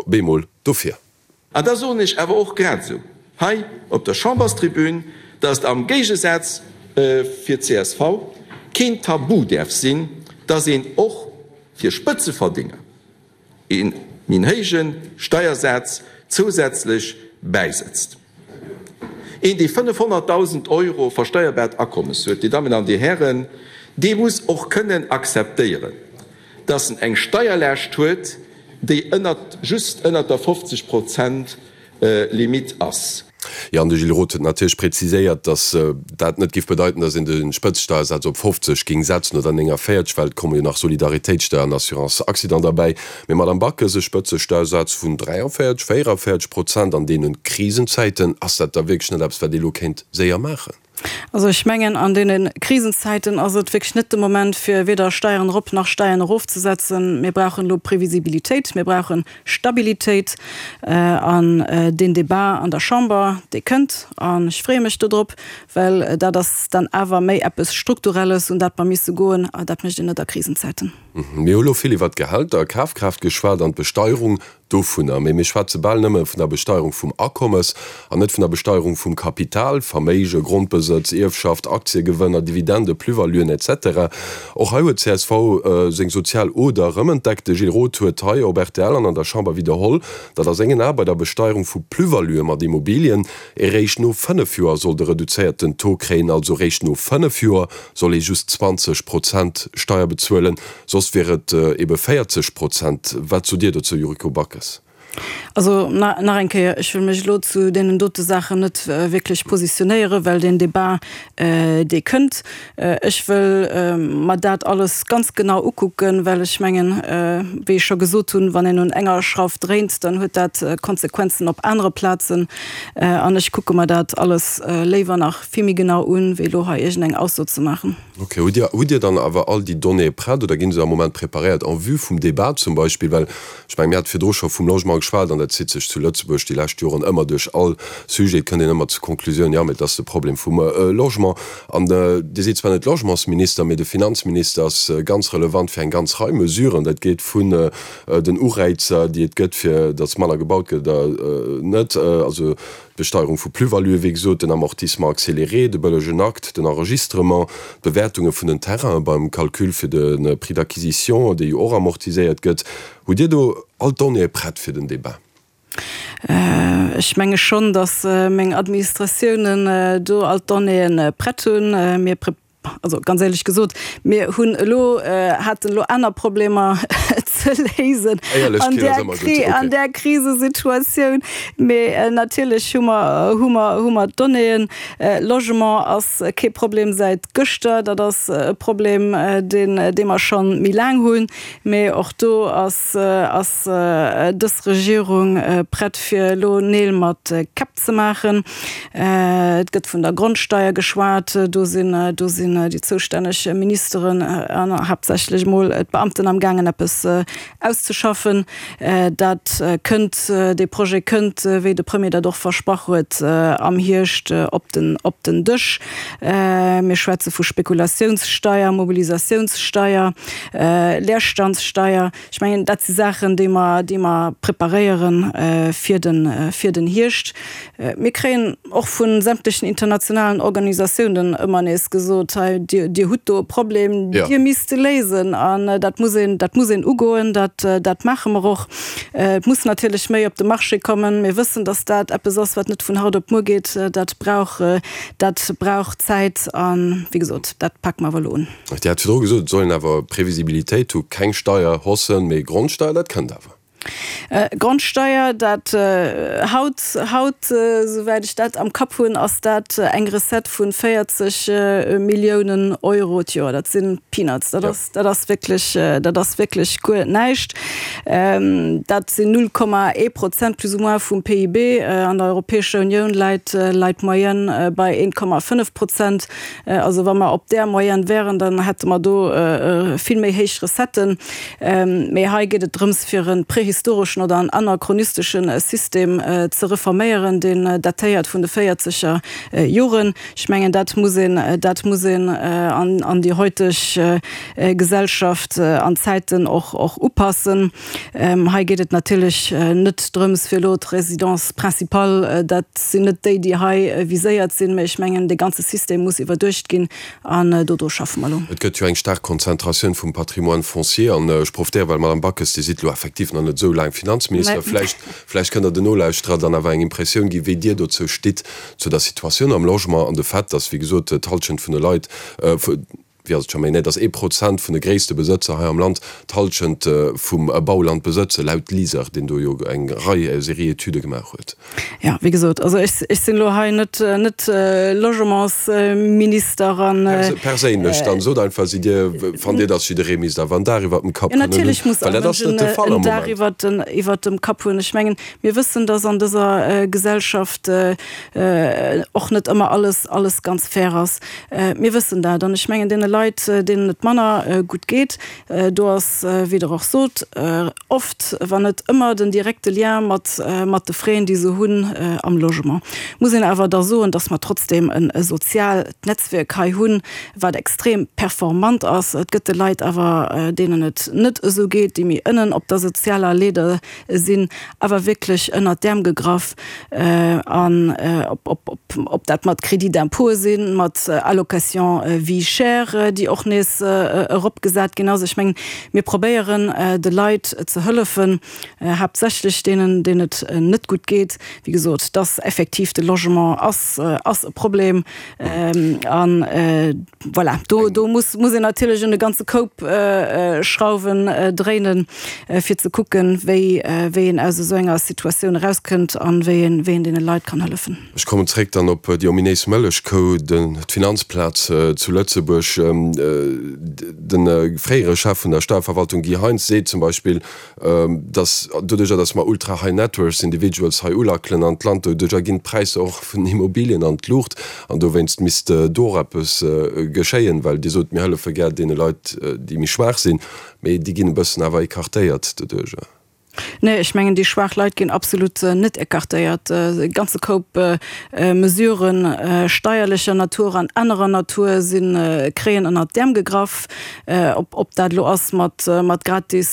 S3: Bemol dofir.
S9: An da soen ech awer och grad esou hei op der Chamberstribün, dass et am Géigesaz fir csv keen Tabu däerf sinn, dass een och fir Spëtzeverdinger ee méi héije Steiersaz zousätzlech bäisetzt. Een, dee 500.000 Euro versteierbaart Akommes huet, Dir Dammen an Dir Hären, dee muss och kënnen akzeptéieren, dass en eng Steierlaascht huet, déi ënnert, just ënnert der 50 Prozent Limitt ass.
S3: Jo, an de Gilles Roth huet natierlech präziséiert, dass dat net géif bedeiten, dass een de Spëtzesteiersaz op 50 géing setzen oder 49, well et komme jo nach Solidaritéitssteuer an Assurance accident derbäi. Mee Madamm Backes, e Spëtzesteiersaz vun 43, 44 Prozent an deene Krisenzäiten, ass dat da wierklech net eppes, wat ee elo kéint séier maachen?
S4: Also ech mengen, an deene Krisenzäiten ass et wierklech net de Moment, fir weder Steieren erop nach Steieren erofzesetzen. Mir brauchen elo Previsibilitéit, mir brauche Stabilitéit. An deen Débat an der Chamber, dee kënnt, an ech freeë mech dodrop, well dat ass dann awer méi eppes Strukturelles, un dat mer misse goen, a dat mécht een net a Krisenzäiten.
S3: Mir hu lo vill iwwert d'Gehälter, Kafkraaft geschwat an d'Besteierung dovunner, mee mir schwätze bal nëmme vun der Besteierung vum Akommes an net vun der Besteierung vum Kapital, Verméige, Grondbesëtz, Ierfschaft, Aktiegewënner, Dividende, Plus-valuen, etc. Och hei huet csv seng sozial Oder erëmentdeckt. De Gilles Roth huet hei op rtl an an der Chamber widderholl, datt a sengen Ae bei der Besteierung vu Plus-valuë mat Immobilien ee réischt no 5 Joer soll de reduzéierten Taux kréien, also réischt no 5 Joer soll ee just 20 Prozent Steier bezuelen, soss wier et ebe 40 Prozent. Wat sot Dir dozou, Yuriko Backes?
S4: Also nach eng Kéier, ech wëll mech elo zu deenen dote Saachen net wierklech positionéieren, well deen Débat, dee kënnt. Ech wëll mer dat alles ganz genau ukucken, well ech mengen, wéi ech scho gesot hunn, wann een un enger Schrauf dréint, dann huet dat Konsequenzen op anere Plazen. An ech kucke mer dat alles léiwer nach vill méi genau un, wéi elo hei iergendeng Ausso ze maachen.
S3: Ok. Hutt Dir, hutt Dir dann awer all déi Donnéeë prett oder ginn se am Moment preparéiert en vue vum Débat zum Beispill? Well ech mengen, mir hate virdru scho vum Logement geschwat an dat zitt sech zu Lëtzebuerg déi lescht Joren ëmmer duerch all Sujet. Et kënnt een ëmmer zur Konklusioun, jo, mee et ass de Problem vum Logement. An Dir sidd zwar net Logementsminister, mee de Finanzminister ass ganz relevant fir eng ganz Rei Mesuren. Dat geet vun den Ureizer, déi et gëtt, fir datt manner gebaut gëtt oder net, also D'Besteierung vu Plus-valuë, wéi gesot, den Amortissement accéléré, de bëllegen Akt, den Enregistrement, d'Bewäertunge vun den Terrainen beim Calcul fir de Prix d'acquisition, dee jo och amortiséiert gëtt. Hutt Dir do all d'Donnéeë prett fir den Débat?
S4: Ech menge schonn, datt meng Administratiounen do all d'Donnéeë prett hunn. Mir Also ganz éierlech gesot, mir hunn elo, haten elo aner Problemer ze léisen an där Kri, an där Krisesituatioun. Mee natierlech hu mer, hu mer, hu mer d'Donnéeën. Logement ass kee Problem säit gëschter, dat ass e Problem, deen, dee mer scho méi laang hunn. Mee och do ass, ass dës Regierung prett fir elo Neel mat Käpp ze maachen. Et gëtt vun der Grondsteier geschwat. Do sinn, do sinn déi zoustänneg Ministeren an haaptsächlech emol d'Beamten amgaangen eppes. auszeschaffen. Dat kënnt, dee Projet kënnt, wéi de Premier dat och versprach huet, am Hierscht op den, op den Dësch. Mir schwätze vu Spekulatiounssteier, Mobilisatiounssteier, Leerstandssteier. Ech mengen, dat si Saachen, déi mer, déi mer preparéiere fir den, fir den Hierscht. Mir kréien och vu sämtlechen internationalen Organisatiounen ëmmer nees gesot, hei, Dir, Dir hutt do e Problem, Dir misst e léisen. An dat muss een, dat muss een ugoen, dat, dat maache mer och. Et muss natierlech méi op de Marché kommen. Mir wëssen, datt dat eppes ass, wat net vun haut op muer geet. Dat brauch, dat brauch Zäit. A wéi gesot, dat pake mer awer elo un.
S3: Dir hat virdru gesot, et soll een awer Previsibilitéit hu, keng Steierhaussen, mee Grondsteier, dat kënnt awer.
S4: Grondsteier, dat haut, haut, souwäit ech dat am Kapp hunn, ass dat eng Recette vu 40 Milliounen Euro d'Joer. Dat si Peanuts, dat ass, dat ass wierklech, dat ass wierklech guer näischt. Dat sinn 0,1 Prozent plus ou moins vum PIB. An der Europäescher Unioun läit, läit d'Moyenne bei 1,5 Prozent. Also wa mer op där Moyenne wären, dann hätte mer do vill méi héich Recetten. Mee hei geet et drëms, fir e prehistoreschen oder en anachronistesche System ze reforméieren, deen datéiert vun de véierzeger Joren. Ech mengen, dat muss een, dat muss een an déi heuteg Gesellschaft an Zäiten och upassen. Hei geet et natierlech net drëms, fir elo d'Résidence principale, dat sinn net déi, déi hei viséiert sinn, mä ech mengen, dee ganze System muss iwwerduecht ginn an dodru schaffe mer elo.
S3: Et gëtt jo eng staark Konzentratioun vum Patrimoine foncier an ech profitéieren, well, Madame Backes, Dir sidd elo effektiv nach net esou laang Finanzminister, vläicht, vläicht kënnt Der den Nolauschterer dann awer eng Impressioun ginn, wéi Dir dozou stitt, zu der Situatioun am Logement an de Fait, dass, wéi gesot, d'Hallschent vun de Leit, wéi ass et scho méi, nee, dass ee Prozent vun de gréisste Besëtzer hei am Land d'Hallschent vum Bauland besëtzen, laut LISER, deen do jo eng Rei Serie Etüde gemaach huet.
S4: Jo, wéi gesot, also ech, ech sinn elo hei net, net Logementsminister an.
S3: Perséinlech dann, sot einfach, sidd Dir, fannt Dir, dass jidderee misst awer en Daach iwwert dem Kapp
S4: kënnen hunn? Natierlech muss all Mënsch en Daach iwwert den, iwwert dem Kapp hunn. Ech mengen, mir wëssen, dass an dëser Gesellschaft och net ëmmer alles, alles ganz fair ass. Mir wëssen dat. An ech mengen, deene Leit, deenen et manner gutt geet, do ass, wéi Der och sot, oft, wann net ëmmer, den direkte Lien mat mat de Fräen, déi se hunn am Logement. Muss een awer da soen, dass mer trotzdeem e soziaalt Netzwierk hei hunn, wat extrem performant ass. Et gëtt de Leit awer, deenen et net esou geet, déi méi ënnen op der sozialer Leeder sinn, awer wierklech ënnert d'Äerm gegraff. An ob dat mat Crédit d'impôt sinn, mat Allocation vie chère, déi och nees eropgesat ginn ass. Ech mengen, mir probéieren de Leit ze hëllefen, haaptsächlech deenen, deenen et net gutt geet. Wéi gesot, dass effektiv de Logement ass, ass e Problem. An voilà, do, do muss, muss een natierlech un e ganze Koup Schrauwen dréinen, fir ze kucken, wéi, wéi een aus esou enger Situatioun erauskënnt an wéi een, wéi een deene Leit kann hëllefen.
S3: Ech kommen zréck dann op déi ominéis Mëllechkou, den, d'Finanzplaz zu Lëtzebuerg. De fréiere Chef vun der Steierverwaltung Guy Heintz seet zum Beispill, dass doduercher, dass mer ultra high net worth individuals hei ulackelen an d'Land, doduercher ginn d'Präisser och vun den Immobilien an d'Luucht an dowéinst misst do och eppes geschéien, well Dir sot, mir hëllefe gär deene Leit, déi méi schwaach sinn, mee déi ginn e bëssen awer écartéiert doduercher.
S4: Nee, ech mengen, déi schwaach Leit ginn absolut net écartéiert. E ganze Koup Mesuren steierlecher Natur an anerer Natur si kréien ënnert d'Äerm gegraff. Ob dat elo ass mat gratis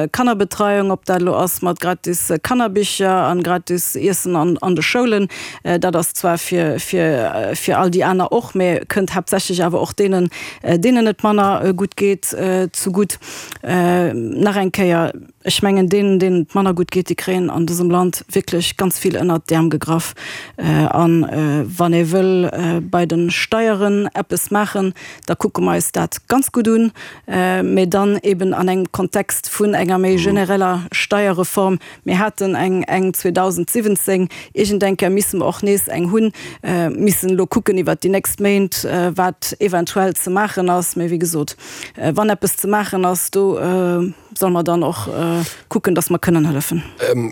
S4: Kannerbetreiung, ob dat elo ass mat gratis Kannerbicher an gratis Iessen an de Schoulen, dat ass zwar fir fir all déi aner och, mä kënnt haaptsächlech awer och deenen, deenen et manner gutt geet, zegutt. Nach eng Kéier, Ech mengen, deenen, deenen et manner gutt geet, déi kréien an dësem Land wierklech ganz vill ënnert d'Äerm gegraff. A wann ee wëll bei de Steieren eppes maachen, da kucke mer eis dat ganz gutt un, mä dann eben an engem Kontext vun enger méi genereller Steierreform. Mir haten eng eng 2017, iergendeng Kéier misse mer och nees eng hunn, missen elo kucken iwwert déi nächst Méint, wat eventuell ze maachen ass. Mä wéi gesot, wann eppes ze maachen ass, do. solle mer dann och kucken, dass mer kënnen hëllefen.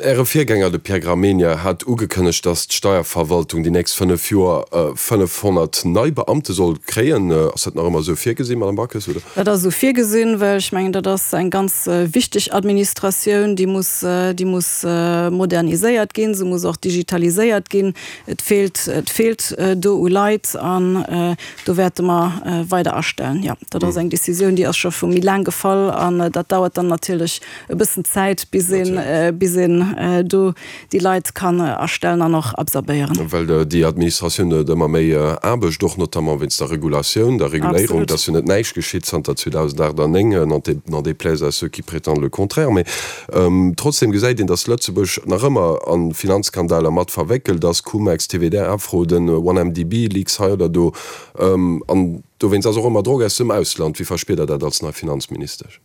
S3: Äre Virgänger, de Pierre Gramegna, hat ugekënnegt, dass d'Steierverwaltung déi nächst 5 Joer 500 nei Beamte soll kréien. Ass dat nach ëmmer esou virgesinn, Madame Backes, oder?
S4: Dat ass esou virgesinn, well ech mengen, dat ass eng ganz wichteg Administratioun, déi muss, déi muss moderniséiert ginn, se muss och digitaliséiert ginn. Et feelt, et feelt do u Leit an do wäerte mer weider astellen. Jo, dat ass eng Décisioun, déi ass scho vu méi laang gefall an dat dauert dann natierlech e bëssen Zäit, bis een, bis een do déi Leit kann astellen an och absorbéieren.
S3: Well déi Administratioun huet ëmmer méi Aarbecht, och notamment wéinst der Regulatioun, der Reguléierung. Et ass jo net näischt geschitt zanter 2008 an 2009, n'en déplaise à ceux qui prétendent le contraire. Mee trotzdem gesäit een, datt Lëtzebuerg nach ëmmer a Finanzskandaler mat verwéckelt ass, Cum-Ex, TWDA-Fraude, OneMDB, Leaks hei oder do. An dowéinst ass och ëmmer Drock aus dem Ausland. Wéi verspiert Der dat als nei Finanzministesch?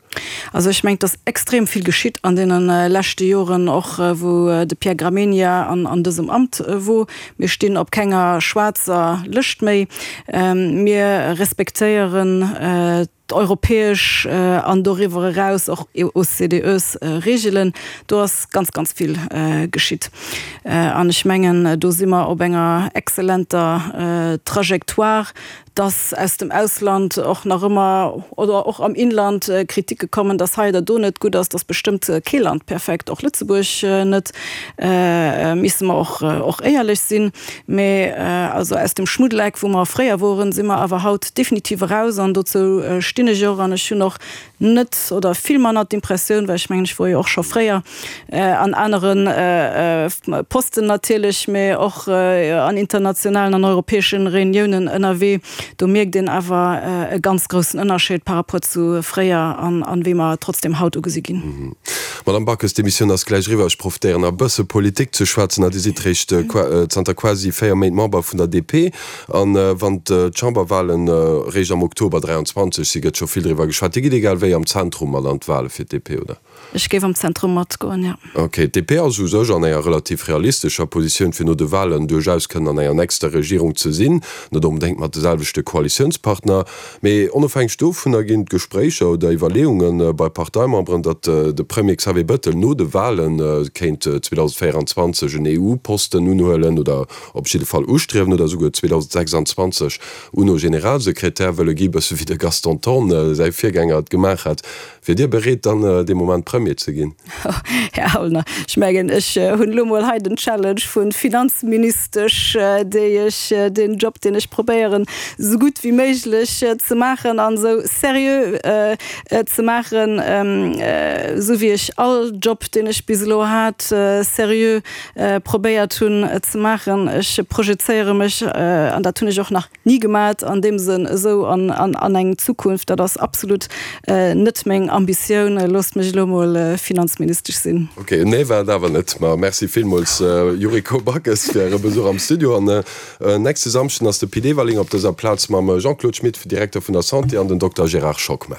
S4: Also ech mengen, et ass extrem vill geschitt an deene leschte Joren, och wou de Pierre Gramegna an dësem Amt wor. Mir stinn op kenger schwaarzer Lëscht méi. Mir respektéieren d'europäesch an doriwwer eraus och OCDEs-Reegelen. Do ass ganz, ganz vill geschitt. An ech mengen, do si mer op enger exzellenter Trajectoire. dass aus dem Ausland och nach ëmmer, oder och am Inland, Kritike kommen, dass hei oder do net gutt ass, dass bestëmmt kee Land perfekt, och Lëtzebuerg net, misse mer och och éierlech sinn. Mä also aus dem Schmuddeleck, wou mer fréier woren, si mer awer haut definitiv eraus an dozou stinn ech och an ech hunn och net oder vill manner d'Impressioun, well ech mengen, ech wor jo och scho fréier an anere Posten natierlech, mä och an internationalen an europäesche Reuniounen ënnerwee, do mierkt een awer e ganz groussen Ënnerscheed par rapport zu fréier an wéi mer trotzdem haut ugesi ginn.
S3: Madame Backes, d'Emissioun ass gläich eriwwer. Ech profitéieren nach e bësse Politik ze schwätzen. Dir sidd réischt zanter quasi 4 Méint Member vun der DP. An wann d'Chamberwahlen réischt am Oktober 23 si gëtt scho vill driwwer geschwat. Dir gitt egal wéi am Zentrum mat an d'Wahle fir d'DP, oder?
S4: Ech géif am Zentrum matgoen, jo.
S3: Ok. D'DP ass u sech an enger relativ realistescher Positioun fir no de Wahlen duerchaus kënnen an enger nächster Regierung ze sinn. Net onbedéngt mat de selwechte Koalitiounspartner. Mee onofhängeg dovunner ginn d'Gespréicher oder Iwwerleeunge bei Parteimemberen, datt de Premier Xavier Bettel no de Wahle kéint 2024 en EU-Posten unhuelen oder op jidde Fall ustriewen oder esouguer 2026 UNO-Generalsekretär wëlle gi, bësse wéi de Gaston Thorn, säi Virgänger, et gemaach hat. Wier Dir bereet, dann dee Moment Premier ze ginn?
S4: Här Aulner, ech mengen, ech hunn elo mol hei den Challenge vu Finanzministesch, déi ech, deen Job, deen ech probéieren, esou gutt wéi méiglech ze maachen an esou seriö ze maachen, esou wéi ech all Job, deen ech bis elo hat, seriö probéiert hunn ze maachen. Ech projezéiere mech, an dat hunn ech och nach ni gemat, an deem Sënn esou an eng Zukunft. Dat ass absolut net meng Ambitioun. Loosst mech elo mol Finanzministesch sinn.
S3: Ok, en Nee war et awer net. Ma merci villmools Yuriko Backes fir Äre Besuch am Studio. An nächste Samschden ass de Pit Everling op dëser Plaz mam Jean-Claude Schmit, Direkter vun der Santé, an den Dokter Gérard Schockmel.